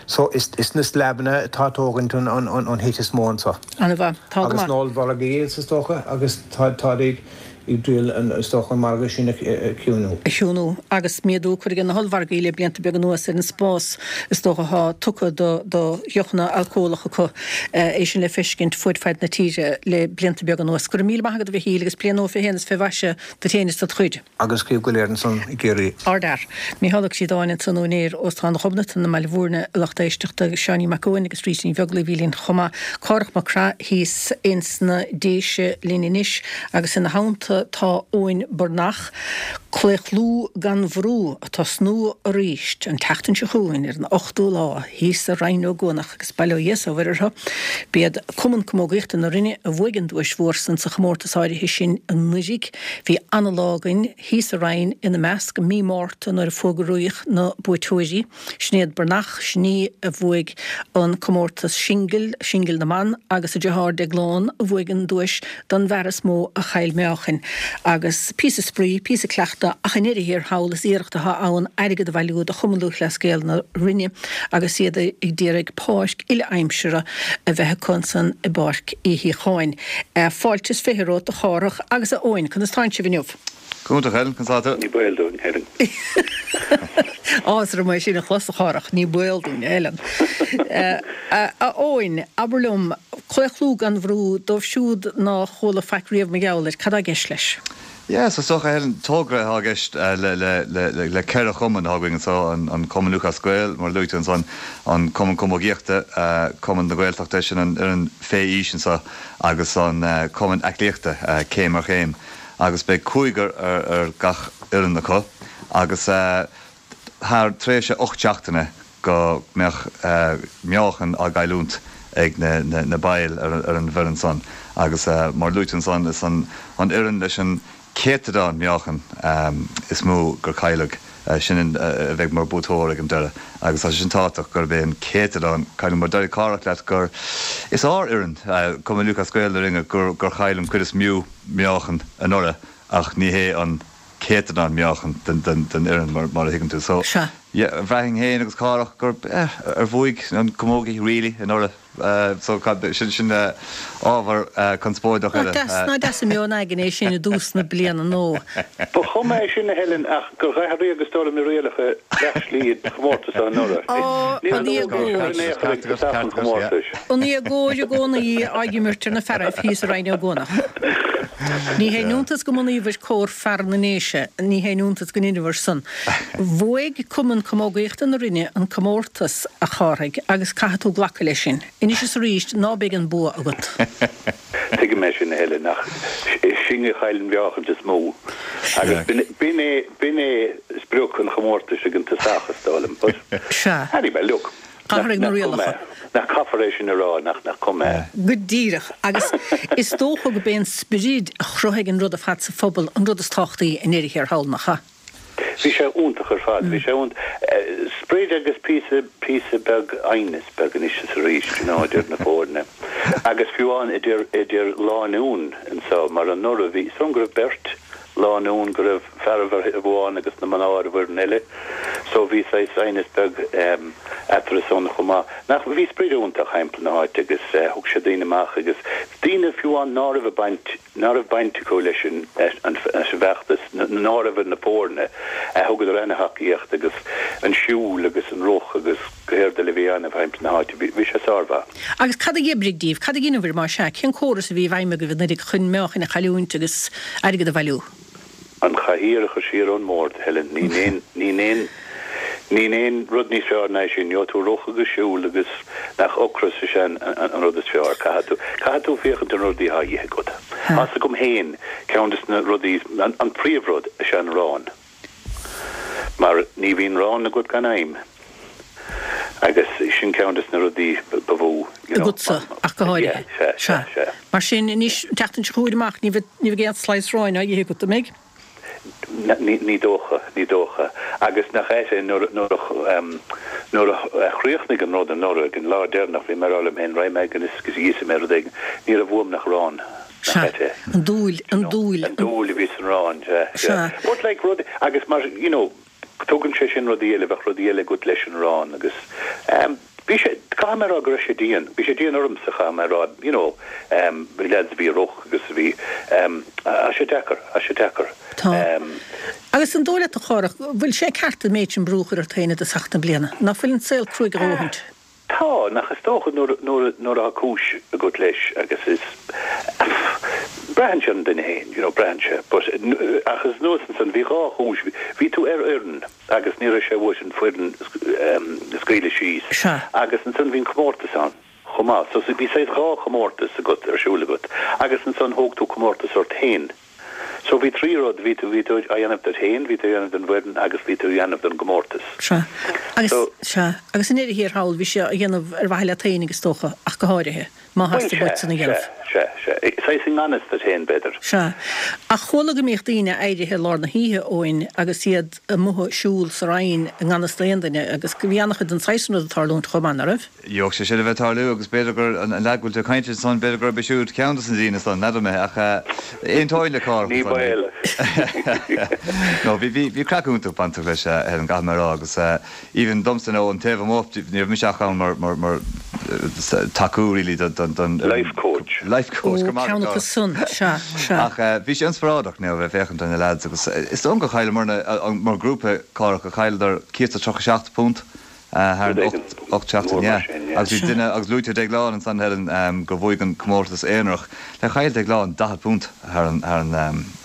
So, is na sleabanna atá ag tógaint an hit is mó anseo. Ana-mhaith. Tá go Agus maith. na ollmhargaí is dócha, agus táid ag triail is dócha an margadh sin a chiúnú. A chiúnú. Agus méadú curtha ag na hollmhargaí le blianta beaga anuas ar an spás is dócha atá tugtha do dheochanna alcólacha acu. É sin le feiscint fuaid faid na tíre le blianta beaga anuas. Go raibh míle maith agat a Mhichíl agus bliain nua fé shéan is fé mhaise duit féin is dod chuid. Agus daoibh go léir ansan i gCiarraí. Ardfhear. Mícheál Ó Críodáin ansan, úinéir Óstán Ghobnatan i mBaile Bhúirne, a lucht éisteachta, agus Seáinín Mac Eoin agus Rita Ní Bheaglaoí a bhí linn chomh maith. Cárthach Mac Craith thíos ins na Déise linn anois agus ina theannta tá Eoin Breathnach. Claochlú gan Bhrú ag tosnú aríst an tseachtain seo chugainn ar an 8ú lá thíos i Rinn Ó gCuanach agus bail ó Dhia is ó Mhuire orthu. B'iad Cumann Camógaíochta na Rinne a bhuaigh an duais mhór san sa chomórtas áirithe sin anuiridh. Bhí ana-lá againn thíos sa Rinn ina measc, mí Márta nuair a fógraíodh na buaiteoirí. Sinéad Breathnach, sin í a bhuaigh an comórtas singil, singil na mban, agus a deartháir Deaglán a bhuaigh an duais don bhfear is mó a chaill meáchain. Agus píosa spraoi, píosa cleachta ach i ndeireadh thiar thall is iarracht atá ann airgead a bhailiú do Chumann Lúthchleas Gael na Rinne agus iad ag d'iarraidh páirc uile-aimsire a bheith acu ansan i bPáirc Uí Shíocháin. Fáilte is 20 romhat a Chárthach agus a Eoin, conas tánn sibh inniu? Go hiontach, Helen, conas tá tú? Ní baol dúinn, Helen. Áthas orm é sin a chlos, a Chárthach, ní baol dúinn, a Helen. A Eoin, abair liom, claochlú gan bhrú, dóibh siúd ná chuala faic riamh mar gheall air, cad tá i gceist leis? Yeah, so is dócha, Helen, togra atá i gceist le, le, le, le ceithre chumann atá againn anseo, an, an Cumann Lúthchleas Gael, mar a luaigh tú ansan, an Cumann Camógaíochta, Cumann na Gaeltachta, sin an fhoireann fé aois anseo, agus an Cumann Aclaíochta, Céim ar Chéim. Agus beidh cúigear ar, ar gach fhoireann acu agus thar tréimhse 8 seachtaine go mbeadh meáchan á gcailliúint ag na baill ar an bhfoireann san agus mar a luaigh tú ansan is an fhoireann leis an céatadán meáchan is mó gur cailleadh, sin a bheidh mar buaiteoir ag an deireadh agus tá sé sin tábhachtach gurb é an céatadán cailliúint mar deir Cárthach leat gur is ár fhoireann, Cumann Lúthchleas Gael na Rinne, gur chaill an cuid is mó meáchan anuraidh ach ní hé an céatadán meáchan den fhoireann mar a thuigeann tú. So, Sea. yeah, bhraithfinn féin agus Cárthach gur, eh, ar bhuaigh an camógaí really anuraidh. So, sin, sin ábhar conspóideach eile. Nach deas, nach deas an meon againn é sin i dtús na bliana nua. Ba chuma é sin, a Helen, ach gur dh'athraíodh is dóigh liom na rialacha leath slí an chomórtais seo anuraidh. Ó, Níor an luadh é seo in aon chor ag tosach an chomórtais. An éagóir i gcónaí á imirt ar na fearaibh thíos i Rinn Ó gCuanach. Ní haon iontas go mbunaíobhair Comhar Fear na nDéise, ní haon iontas go ndeineabhair san. Bhuaigh Cumann Camógaíochta na Rinne an comórtas, a Chárthaigh, agus caithfidh tú glacadh leis sin. Anois is arís, ná beidh an bua agat. Tuigim é sin, a Helen, ach sinn a chaill an mheáchaint is mó. Agus b'in é, b'in é sprioc an chomórtais ag an tosach, is dóigh liom. But, Sea. anyway, look, nach, Athraigh na nach cuma rialacha. é. Nach caithfear é sin a rá, nach, nach cuma é. Go díreach. Agus is dócha go b'é an sprid a chruthaigh an rud ar fad sa phobal an rud is tábhachtaí i ndeireadh thiar thall, nach ea? Bhí sé iontach ar fad. Bhí sé iontach. Sprid agus píosa, píosa beag aighneas beag anois is arís, you know, idir na foirne. Agus fiú amháin idir, idir lánúin anseo, mar anuraidh bhí, is dóigh liom go raibh beirt lánúin, go raibh fear ar thaobh amháin agus na mná ar an bhfoireann eile. So bhí saghas aighneas beag eatarthu san chomh maith. Nach, bhí sprid iontach thimpeall na háite agus thug sé daoine amach agus daoine fiú amháin ná raibh ag baint, ná raibh baint acu leis an bhfeachtas, ná raibh ar na foirne, thugadar ana-thacaíocht agus an siúl agus an rith agus go héard eile a bhí á dhéanamh thimpeall na háite. Bhí sé sármhaith. Agus cad a dh'oibrigh díbh? Cad a dheineabhair, más ea? Cén córas a bhí i bhfeidhm agaibh anuraidh chun meáchain a chailliúint agus airgead a bhailiú? An chathaoir a chur siar ón mbord, Helen. Níl aon, níl aon, níl aon rud níos fearr ná é sin. Gheobhaidh tú rith agus siúl agus nach ocras is ea an, an rud is fearr. Caithfidh tú, caithfidh tú féachaint ar na rudaí atá a dhíth agat. Tá's agam féin, ceann des na rudaí, an, an príomhrud is ea an arán. Mar ní bhíonn arán agat gan aidhm. Agus sin ceann des na rudaí ba mhó, you know. Agatsa, ach go háirithe. Yeah, sea, sea, sea. Mar sin, anois, an tseachtain seo chugainn amach, ní bheidh, ní bheidh aon slice aráin á ithe agat, an mbeidh? Ní, ní dócha, ní dócha. Agus nach ait é, nuair, nuair a, nuair a chríochnaigh an rud anuraidh, ag an lá deireanach, bhí mé ag rá liom féin, raghaidh mé agus íosfaidh mé rud éigin. Ní raibh uaim nach arán. Nach Sea. ait é? An dúil, an dúil. An dúil a bhí san arán, sea, sea. Sea. But like rud, agus mar, you know, Tugann sé sin rudaí eile, bheadh rudaí eile agat leis an arán agus ehm bhí sé, caithfidh mé a rá go raibh sé dian, bhí sé dian ormsa caithfidh mé a rá, you know ehm bhí lads a bhí ag rith agus a bhí ehm tá sé deacair, tá sé deacair Tá. ehm. Agus an dóigh leat a Chárthach, bhfuil sé ceart an méid sin brú a chur ort féin i dtosach na bliana? Ná fuil an saol cruaidh a dhóthaint? Tá, nach is dócha nuair, nuair, nuair atá cúis agat leis agus is, braitheann sé ar an duine féin, you know, braitheann sé. But, ach is anuas ansan, bhí dhá chúis, bhí tú ar fhoireann agus ní raibh sé uait an foireann a scaoileadh síos Sea. agus ansan bhí an comórtas ann chomh maith. So bhí saghas dhá chomórtas agat, ar siúl agat agus ansan thóg tú comórtas ort féin. So bhí trí rud, bhí tú, bhí tú á dhéanamh duit féin, bhí tú á dhéanamh don bhfoireann agus bhí tú á dhéanamh don gcomórtas. Sea. Agus, So. sea. Agus i ndeireadh thiar thall, bhí sé á dhéanamh ar mhaithe leat féinig is dócha, ach go háirithe, má Bhuel, theastaigh sea, uait san a dhéanamh. sea, sea, sea. Saghas i ngan fhios duit féin, b'fhéidir. Sea. Ach chuala go mbíodh daoine éirithe i lár na hoíche, Eoin, agus iad amuigh ag siúl sa Rinn i ngan fhios d'aon duine, agus bhí an-chuid den saghas san rud ag tarlúint chomh maith, ná raibh? Gheobhadh sé sin a bheith ag tarlú agus b'fhéidir gur an leaid go bhfuil tú ag caint air ansan, b'fhéidir gurb é siúd ceann dos na daoine san, n'fheadar mé, ach aontóinn le Cárthach Ní ansan. baol. No, bhí, bhí, bhí craic iontach bainteach leis, Helen, caithfidh mé a rá, agus even domsa, nó ón taobh amuigh, ní raibh mise ach ann mar, mar, mar tacú really don, don, don. Life coach. Life coach, Ó, go maith ceann acu agat, san, sea, sea. Ach bhí sé inspioráideach, you know, a bheith ag féachaint ar na lads agus is dóigh liom gur chailleamarna, mar grúpa, Cárthach, gur chailleadar £137. Thar an 8 seachtain, yeah. Agus bhí duine, agus luaigh tú Déaglán ansan, Helen, gur bhuaigh an comórtas aonarach. Like chaill Déaglán £40 thar an thar an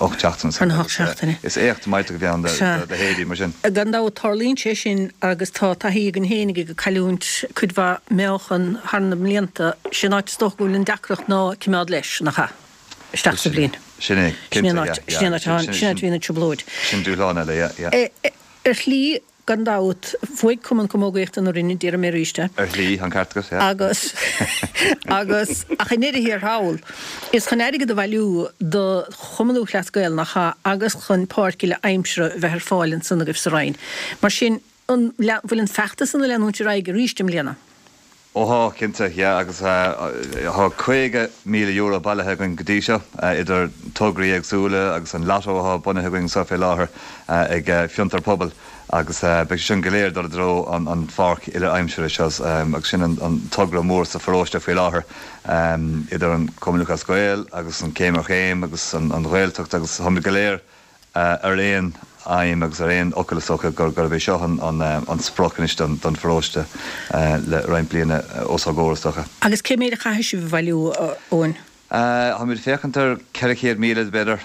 8 seachtain Thar na hocht seachtaine. Is éacht millteach a bhí ann do leithéidí mar sin. Gan dabht tarlaíonn sé sin agus tá taithí againn féinig ag cailliúint cuid mhaith meáchan thar na mblianta. Sé an áit is dócha go bhfuil an deacracht ná cimeád leis, nach ea? Isteach sa bhliain. Sin é, Sin é cinnte, an áit, yeah, sin é an áit, yeah. sin an áit a bhíonn an trioblóid. Sin dúshlán eile, yeah, yeah. Ar shlí, Gan dabht, bhuaigh Cumann Camógaíochta na Rinne, déarfaidh mé arís é. Ar shlí, an ceart agat, yeah. Agus, agus, ach i ndeireadh thiar thall, is chun airgead a bhailiú do Chumann Lúthchleas Gael, nach ea, agus chun páirc uile aimsire a bheith ar fáil ansan agaibh sa Rinn. Mar sin, an bhfuil an feachtas san ag leanúint ar aghaidh arís i mbliana? Ó thá, cinnte, yeah, agus thá €50,000 bailithe againn go dtí seo, idir tograí éagsúla agus an lotto athá bunaithe againn anseo fé láthair ag Fiontar Pobail agus beidh sé sin go léir ag dul i dtreo an pháirc uile aimsire seo agus sin an togra mór sa pharóiste faoi láthair idir an Cumann Lúthchleas Gael agus an Céim ar Chéim agus an Ghaeltacht agus táimid go léir ar aon aidhm agus ar aon fhocal is dócha gurb é seo an sprioc anois don pharóiste le roinnt bliana os ár gcomhair is dócha. Agus cé méid a chaithfidh sibh a bhailiú, a Eoin? Táimid ag féachaint ar 400,000 b'fhéidir,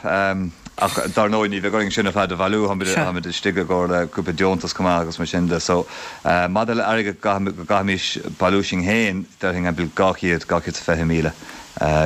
ach dar ndóigh ní bheidh orainn sin ar fad a bhailiú, táimid istigh i gcomhair le cúpla deontas chomh maith agus mar sin de. So, maidir le airgead go gcaithfimis bailiú sinn féin, déarfainn timpeall 200, 220,000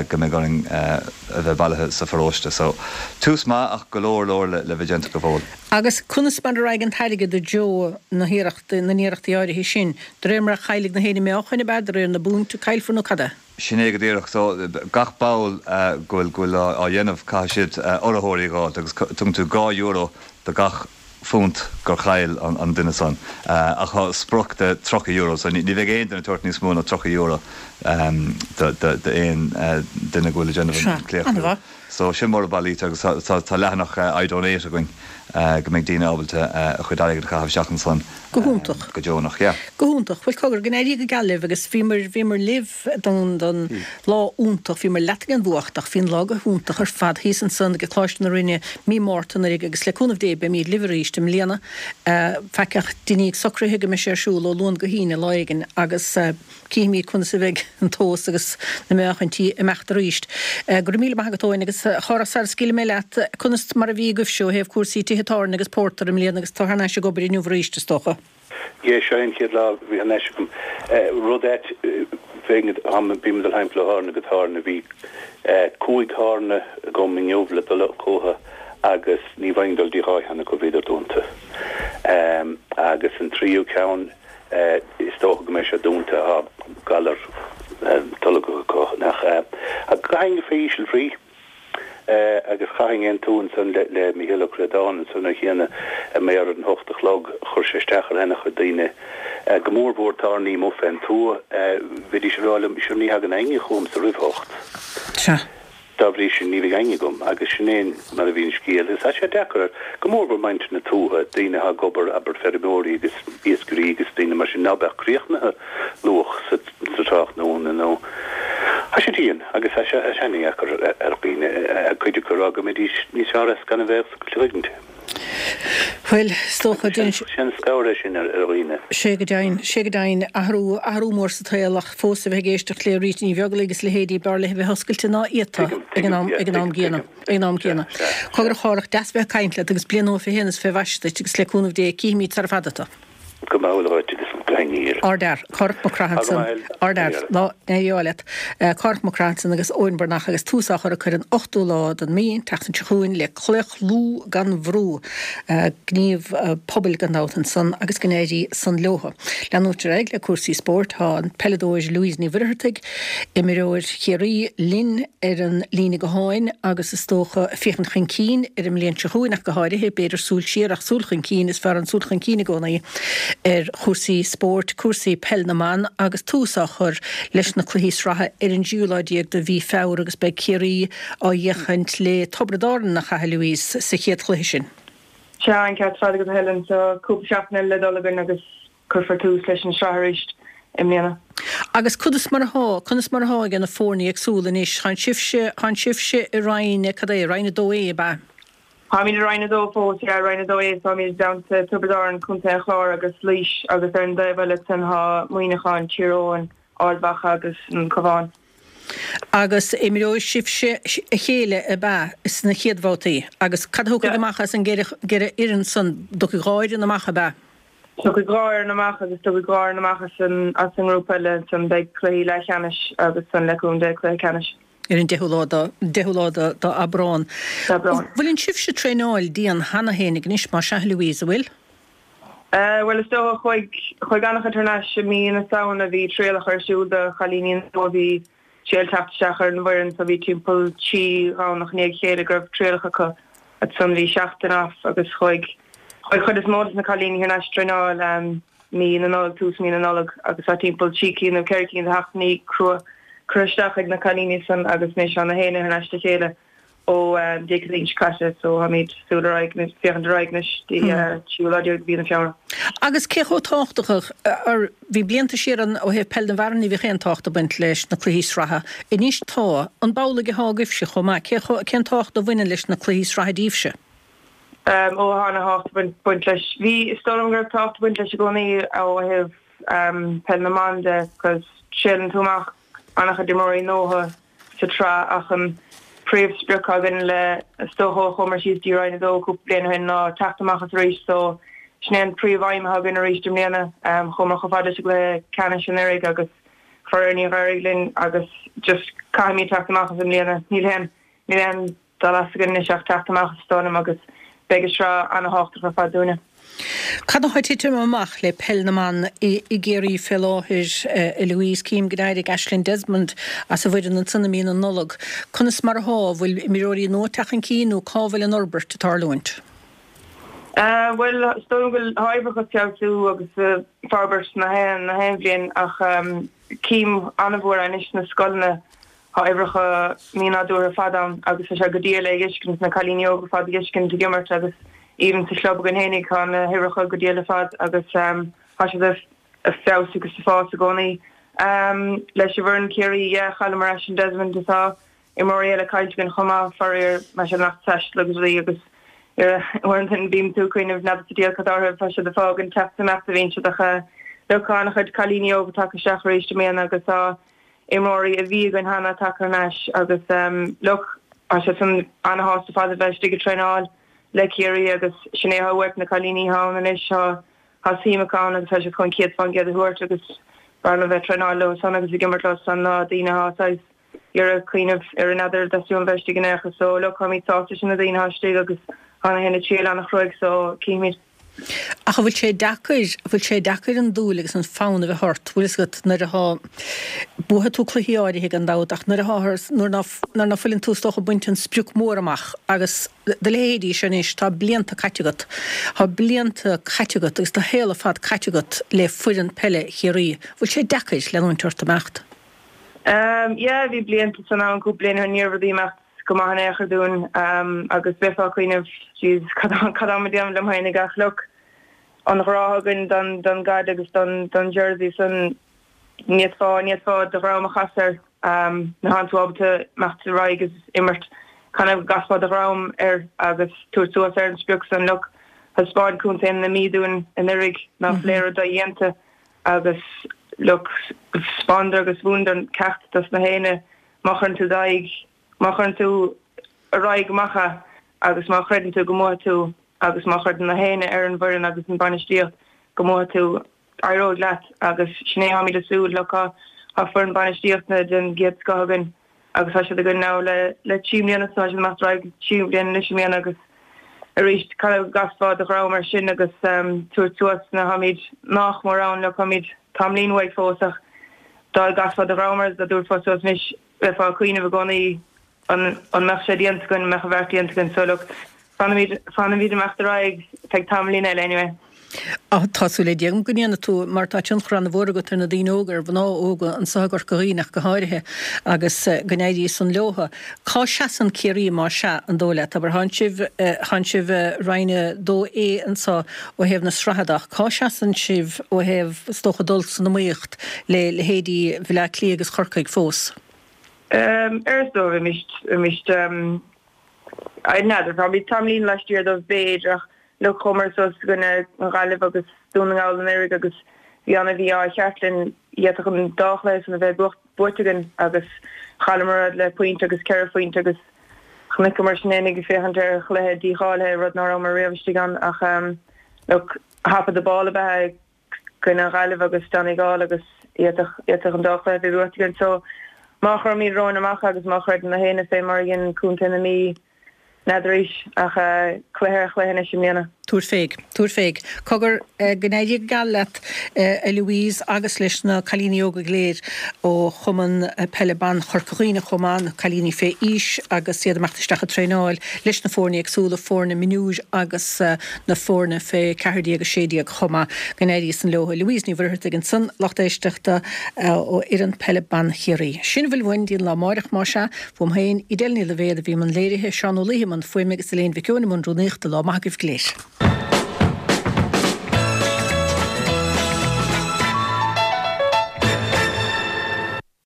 go mbeidh orainn a bheith bailithe sa pharóiste. So, tús maith ach go leor leor le bheith déanta go fóill. Agus conas mar a raghaidh an t-airgead i dtreo na hiarrachtaí, na n-iarrachtaí áirithe sin? De réir mar a chaillfidh na héinne meáchain, ab ea? De réir na bpunt a caillfear nó cad é? Sin é go díreach. So, gach ball go bhfuil, go bhfuil á dhéanamh, caithfidh siad urraitheoirí a dh'fháilt agus tugann tú €2 do gach phunt gur chaill an duine san. Ach tá sprioc de €30, so ní bheidh aon duine ag tabhairt níos mó ná €30 d'aon duine go bhfuil ag déanamh an claochlú. So sin mar a bailítear agus tá leathanach iDonate againn go mbeidh daoine ábalta a chuid airgid a chaitheamh isteach ansan Go hiontach. go deonach, yeah. Go hiontach. Bhuel cogar, go n-éirí go geal libh agus bhíomar, bhíomar libh don, don lá iontach, bhíomar leat ag an bhfuacht ach bhí an lá go hiontach ar fad thíos ansan ag Coláiste na Rinne mí Márta anuraidh agus le cúnamh Dé beimíd libh arís i mbliana. Faic ach deiníg socruithe go mbeidh sé ar siúl ó Luan go hAoine lá éigin agus. Cífimid conas a bheidh an tomhas agus na meáchaintí ag imeacht arís. Go raibh míle maith agat Eoin agus a Chárthach sara scaoilfidh mé leat, conas mar a bhí agaibhse ó thaobh cúrsaí tithe tábhairne agus pórtair i mbliana agus tú thar n-ais ag obair inniu arís is dócha? Yeah, seo é an chéad lá a bhí thar n-ais agam. Rud ait, bheinn, bím ag dul thimpeall ó thábhairne go tábhairne, bhí cúig thábhairne agam inniu le dul chucu agus ní bhfaighinn dul dtí dhá cheann acu, bhíodar dúnta. Agus an tríú ceann, Is dócha go mbeidh sé dúnta, tá galar tolgach acu, nach ea? Ach caithfinn fé íseal bhrí agus chaithfinn aontú ansan le Mícheál Ó Críodáin ansan ar chiana a mbeidh ar an hocht a chlog, chuir sé isteach ar ana-chuid daoine, go mór mhór tábhairní amuigh fén tuath, bhídís ag rá liom, sure ní thagann éinne chugamsa roimh hocht. Sea. Dá bhrí sin, ní bheidh éinne agam, agus sin é mar a bhí an scéal. Agus tá sé deacair, go mór mhór muintir na tuaithe, daoine atá ag obair, abair, feirmeoirí agus iascairí agus daoine mar sin, ná beadh críochnaithe luath sa tráthnóna nó tá sé dian agus tá sé ana-dheacair ar dhaoine, cuid acu ag rá go mbeidís níos fearr as gan a bheith ag oscailt. Bhuel, is dócha, déanann sé. Sé an scabhar é sin ar dhaoine. Sé go deimhin, sé go deimhin. Athrú, athrú mór sa tsaol ach fós a bheith ag éisteacht le Rita Ní Bheaglaoich agus leithéidí, b'fhearr léi a bheith oscailte ná iata ag an am, ag an am gcéanna, ag an am céanna. Cogar a Chárthach, deas bheith ag caint leat agus bliain nua fé shéan is fé mhaise duit agus le cúnamh Dé cífimid sara fada tu. Go maith dhuit agus go haniar. Ardfhear, Cárthach Mac Craith ansan. Ardfhear, go n-éirí ádh leat. Cárthach Mac Craith ansan agus Eoin Breathnach agus tús á chur acu ar an ochtú lá den mí, an tseachtain seo chugainn, le Claochlú gan Bhrú. Gníomh pobail gan dabht ansan agus go n-éirí san leothu. Leanúint ar aghaidh le cúrsaí spóirt, tá an peileadóir Louise Ní Mhuircheartaigh, imreoir Chiarraí, linn ar an líne gutháin agus is dócha féachaint chun cinn ar an mbliain seo chugainn ach go háirithe, b'fhéidir súil siar ach súil chun cinn, is fearr an súil chun cinn i gcónaí ar chúrsaí spóirt, cúrsaí peil na mban agus tús á chur leis na cluichí sraithe ar an dtríú lá déag de mhí Feabhra agus beidh Ciarraí á bhféachaint le Tiobraid Árann, nach ea, a Louise, sa chéad chluiche sin. Sea, an ceart ar fad agat a Helen, tá cúpla seachtain eile le dul againn agus Cuirfear tús leis an sraith arís i mbliana. Agus conas mar athá, conas mar athá ag na foirne éagsúla anois? Tánn sibhse, tánn sibhse i Roinn, cad é, Roinn 2A, ab ea? Táimid i Roinn 2 fós, yeah, Roinn 2A, táimid i dteannta Tiobraid Árann, Contae an Chláir agus Laois agus ar an dtaobh eile ansan tá Muineachán, Tír Eoghain, Ard Mhacha agus an Cabhán. Agus imreoidh sibhse a chéile, ab ea, sna chéad bhabhtaí? Agus cad a thiocfaidh amach as an gceithre fhoireann san? Tiocfaidh dhá fhoireann amach, ab ea? Tiocfaidh dhá fhoireann amach agus tiocfaidh dhá fhoireann amach as an as an ngrúpa eile ansan beidh cluichí leathcheannais agus ansan le cúnamh Dé cluiche ceannais. Ar an deichiú lá de deichiú lá de d'Aibreán. D'Aibreán. Bhfuileann sibhse traenáil dian cheana fhéinig anois más ea a Louise, an bhfuil? Bhuel is dócha chuaigh chuaigh an-chuid thar n-ais i mí na Samhna bhí trialacha ar siúl do chailíní nua bhí triail teacht isteach ar an bhfoireann so bhí timpeall 3 Dhomhnach i ndiaidh a chéile go raibh trialacha acu. Ansan bhí seachtain off agus chuaigh chuaigh chuid is mó de na cailíní thar n-ais traenáil mí na Nollag, tús mí na Nollag agus tá timpeall trí cinn nó ceithre cinn de sheachtainí crua curtha isteach ag na cailíní san agus anois tá na héinne thar n-ais le chéile ó Dé Céadaoin seo caite so táimid súil ar aghaidh anois, féachaint ar aghaidh anois dtí tríú lá déag de mhí na Feabhra. Agus cé chomh tábhachtach, ar, bhí blianta siar ann ó thaobh peil na bhfear ní bhíodh aon tábhacht ag baint leis na cluichí sraithe, anois tá, an b'amhlaidh atá agaibhse chomh maith, cé chomh, cén tábhacht a bhaineann leis na cluichí sraithe daoibhse? Ó tá ana-thábhacht ag baint leis. Bhí, is dóigh liom go raibh tábhacht ag baint leis i gcónaí ó thaobh peil na mban de, 'cause triaileann tú amach an-chuid imreoirí nua. sa tsraith ach an príomh-sprioc againn le is dócha ó chuamar síos dtí Roinn 2 cúpla bliain ó shin ná teacht amach as arís so sin é an príomh-aidhm atá againn arís i mbliana. Chuamar chomh fada leis an gcluiche ceannais anuraidh agus faraor níor éirigh linn agus just caithfimid teacht amach as i mbliana. Níl aon níl aon dul as againn anois ach teacht amach as is dóigh liom agus beidh an sraith ana-thábhachtach ar fad dúinne. Cad atá ag titim amach le peil na mban i gCiarraí fé láthair, a Louise? Cím go d'éirigh Aisling Desmond as an bhfoireann ansan i mí na Nollag. Conas mar athá? An bhfuil imreoirí nua ag teacht chun cinn nó cá bhfuil an fhorbairt ag tarlúint? Bhuel, is dóigh liom go bhfuil tá uimhreacha ag feabhsú agus ag forbairt na haon na haon bhliain ach cím an-mhór anois sna scoileanna tá uimhreacha mínádúrtha ar fad ann agus tá sé go diail é a fheiscint, na cailíní óga ar fad a fheiscint ag imirt agus even sa chlub againn fhéinig tá na huimhreacha go diail ar fad agus tá siad ag feabhsú agus ag fás i gcónaí. Leis an bhfoireann Ciarraí, yeah, chailleamar Aisling Desmond tá imreoirí eile caillte againn chomh maith, faraor, mar sin lucht taistil agus rudaí agus uaireanta bíonn tú ag cuimhneamh n'fheadar sa diabhal cad orthu, tá siad ag fágaint teacht is imeacht a bhíonn siad ach look tá an-chuid cailíní óga tagtha isteach arís i mbliana agus tá imreoirí a bhí againn cheana tagtha thar n-ais agus look tá siad san an-shásta ar fad a bheith istigh ag traenáil le Ciarraí agus sin é atá uait na cailíní atá ann anois tá tá suim acu ann agus tá siad chun 100% a thabhairt agus b'fhearr liom bheith ag traenáil leo san agus ag imirt leo san ná daoine atá saghas iarraidh cuimhneamh ar n'fheadar theastaíonn bheith istigh in aon chor so look táimid sásta leis na daoine atá istigh agus tá na héinne ag triail an-chruaidh so cífimid. Ach an bhfuil sé deacair, an bhfuil sé deacair an dúil agus an fonn a bheith ort, bhfuil fhios agat, nuair athá, buafaidh tú cluichí áirithe gan dabht ach nuair athá, nuair ná, nuair ná fuileann tú is dócha ag baint an sprioc mór amach agus do leithéidí seo anois, tá blianta caite agat, tá blianta caite agat agus do shaol ar fad caite agat le foireann peile Chiarraí, bhfuil sé deacair leanúint ort imeacht? Yeah, bhí blianta san ann, cúpla bliain ó shin, ní raibh rudaí imeacht go maith in aon chor dúinn agus bheifeá ag cuimhneamh, jeez, cad tá mé ag déanamh liom féinig ach look, an ghrá againn don don gcaid agus don don jersey san, ní fhéadfá, ní fhéadfá do dhroim a chasadh air, nuair atánn tú ábalta imeacht ar aghaidh agus imirt, kind of go gcasfá do dhroim air agus tabhairt suas ar an sprioc san, look, thaispeáin contae na Mí dúinn anuraidh nach bhfuil aon rud dodhéanta. Agus look, 'spáineadar agus mhúineadar ceacht dos na héinne, má chuireann tú d'aghaidh, má chuireann tú ar aghaidh go maith é agus má chreideann tú go mbuafaidh tú agus má chreideann na héinne ar an bhfoireann agus an bainistíocht go mbuafaidh tú, éireoidh leat agus sin é táimid ag súil, look, tá foireann bainistíochta den gcéad scoth againn. agus tá siad againn now le le 3 mbliana so tá siad ag imeacht ar aghaidh 3 bliana anois i mbliana agus arís kind of go gcasfá do dhroim air sin agus tabhairt suas nuair táimid nach mór ann look táimid tamaillín uaidh fós ach dá gcasfá do dhroim air dá dtabharfá suas anois bheifeá ag cuimhneamh i gcónaí an an mbeadh sé déanta againn an mbeadh an bheart déanta againn so look fanfaimid fanfaimid ag imeacht ar aghaidh feadh tamaillín eile anyway. Tá súil le Dia agam go ndéanfaidh tú, mar tá tionchar an-mhór agat ar na daoine óga, ar mhná óga anso i gCorca Dhuibhne ach go háirithe, agus go n-éirí san leotha. Cá seasann Ciarraí más ea, an dóigh leat? Abair, thánn sibh, thánn sibh i Roinn 2A anso ó thaobh na sraithe de ach cá seasann sibh ó thaobh, is dócha, dul san iomaíocht le leithéidí Bhaile Átha Cliath agus Chorcaigh fós? Ar is dóigh, bheimis, bheimis, n'fheadar, táimid tamaillín laistiar dóibh b'fhéidir ach Look, chuamar suas i gcoinne an Ghaillimh agus Dún na nGall anuraidh agus bhí ana mhí-ádh cheart linn. D'fhéadfadh an dá chluiche san a bheith buaite againn agus chailleamar iad le pointe agus ceithre phointe agus chonaiceamar sinn fhéinig ag féachaint ar chluiche dícháilithe, rud ná rabhamar riamh istigh ann ach look, top of the ball ab ea i gcoinne an Ghaillimh agus Donegal agus d'fhéadfadh an dá chluiche a bheith buaite againn. So má chuirimid romhainn amach agus má chreideann na héinne fé mar a dhein Contae na Mí, N'fheadar arís, ach cluiche ar chluiche anois i mbliana. Tabhair féig. Tabhair féig. Cogar, go n-éirí go geal leat, a Louise, agus leis na cailíní óga go léir ó Chumann Peile Ban Chorca Dhuibhne chomh maith, na cailíní fé aois agus iad ag imeacht isteach ag traenáil leis na foirne éagsúla, foirne mionúir agus na foirne fé 14, 16 chomh maith. Go n-éirí san leo. Louise Ní Mhuircheartaigh ansan, lucht éisteachta ó fhoireann peile ban Chiarraí. Sin a bhfuil uainn dtí an lá amáireach, más ea. Uaim féin, Edel Ní Loibhéad a bhí i mbun léirithe, Seán Ó Laoithe i mbun fuaime agus Elaine Mhic Eoin i mbun rúnaíochta. Lá maith agaibh go léir.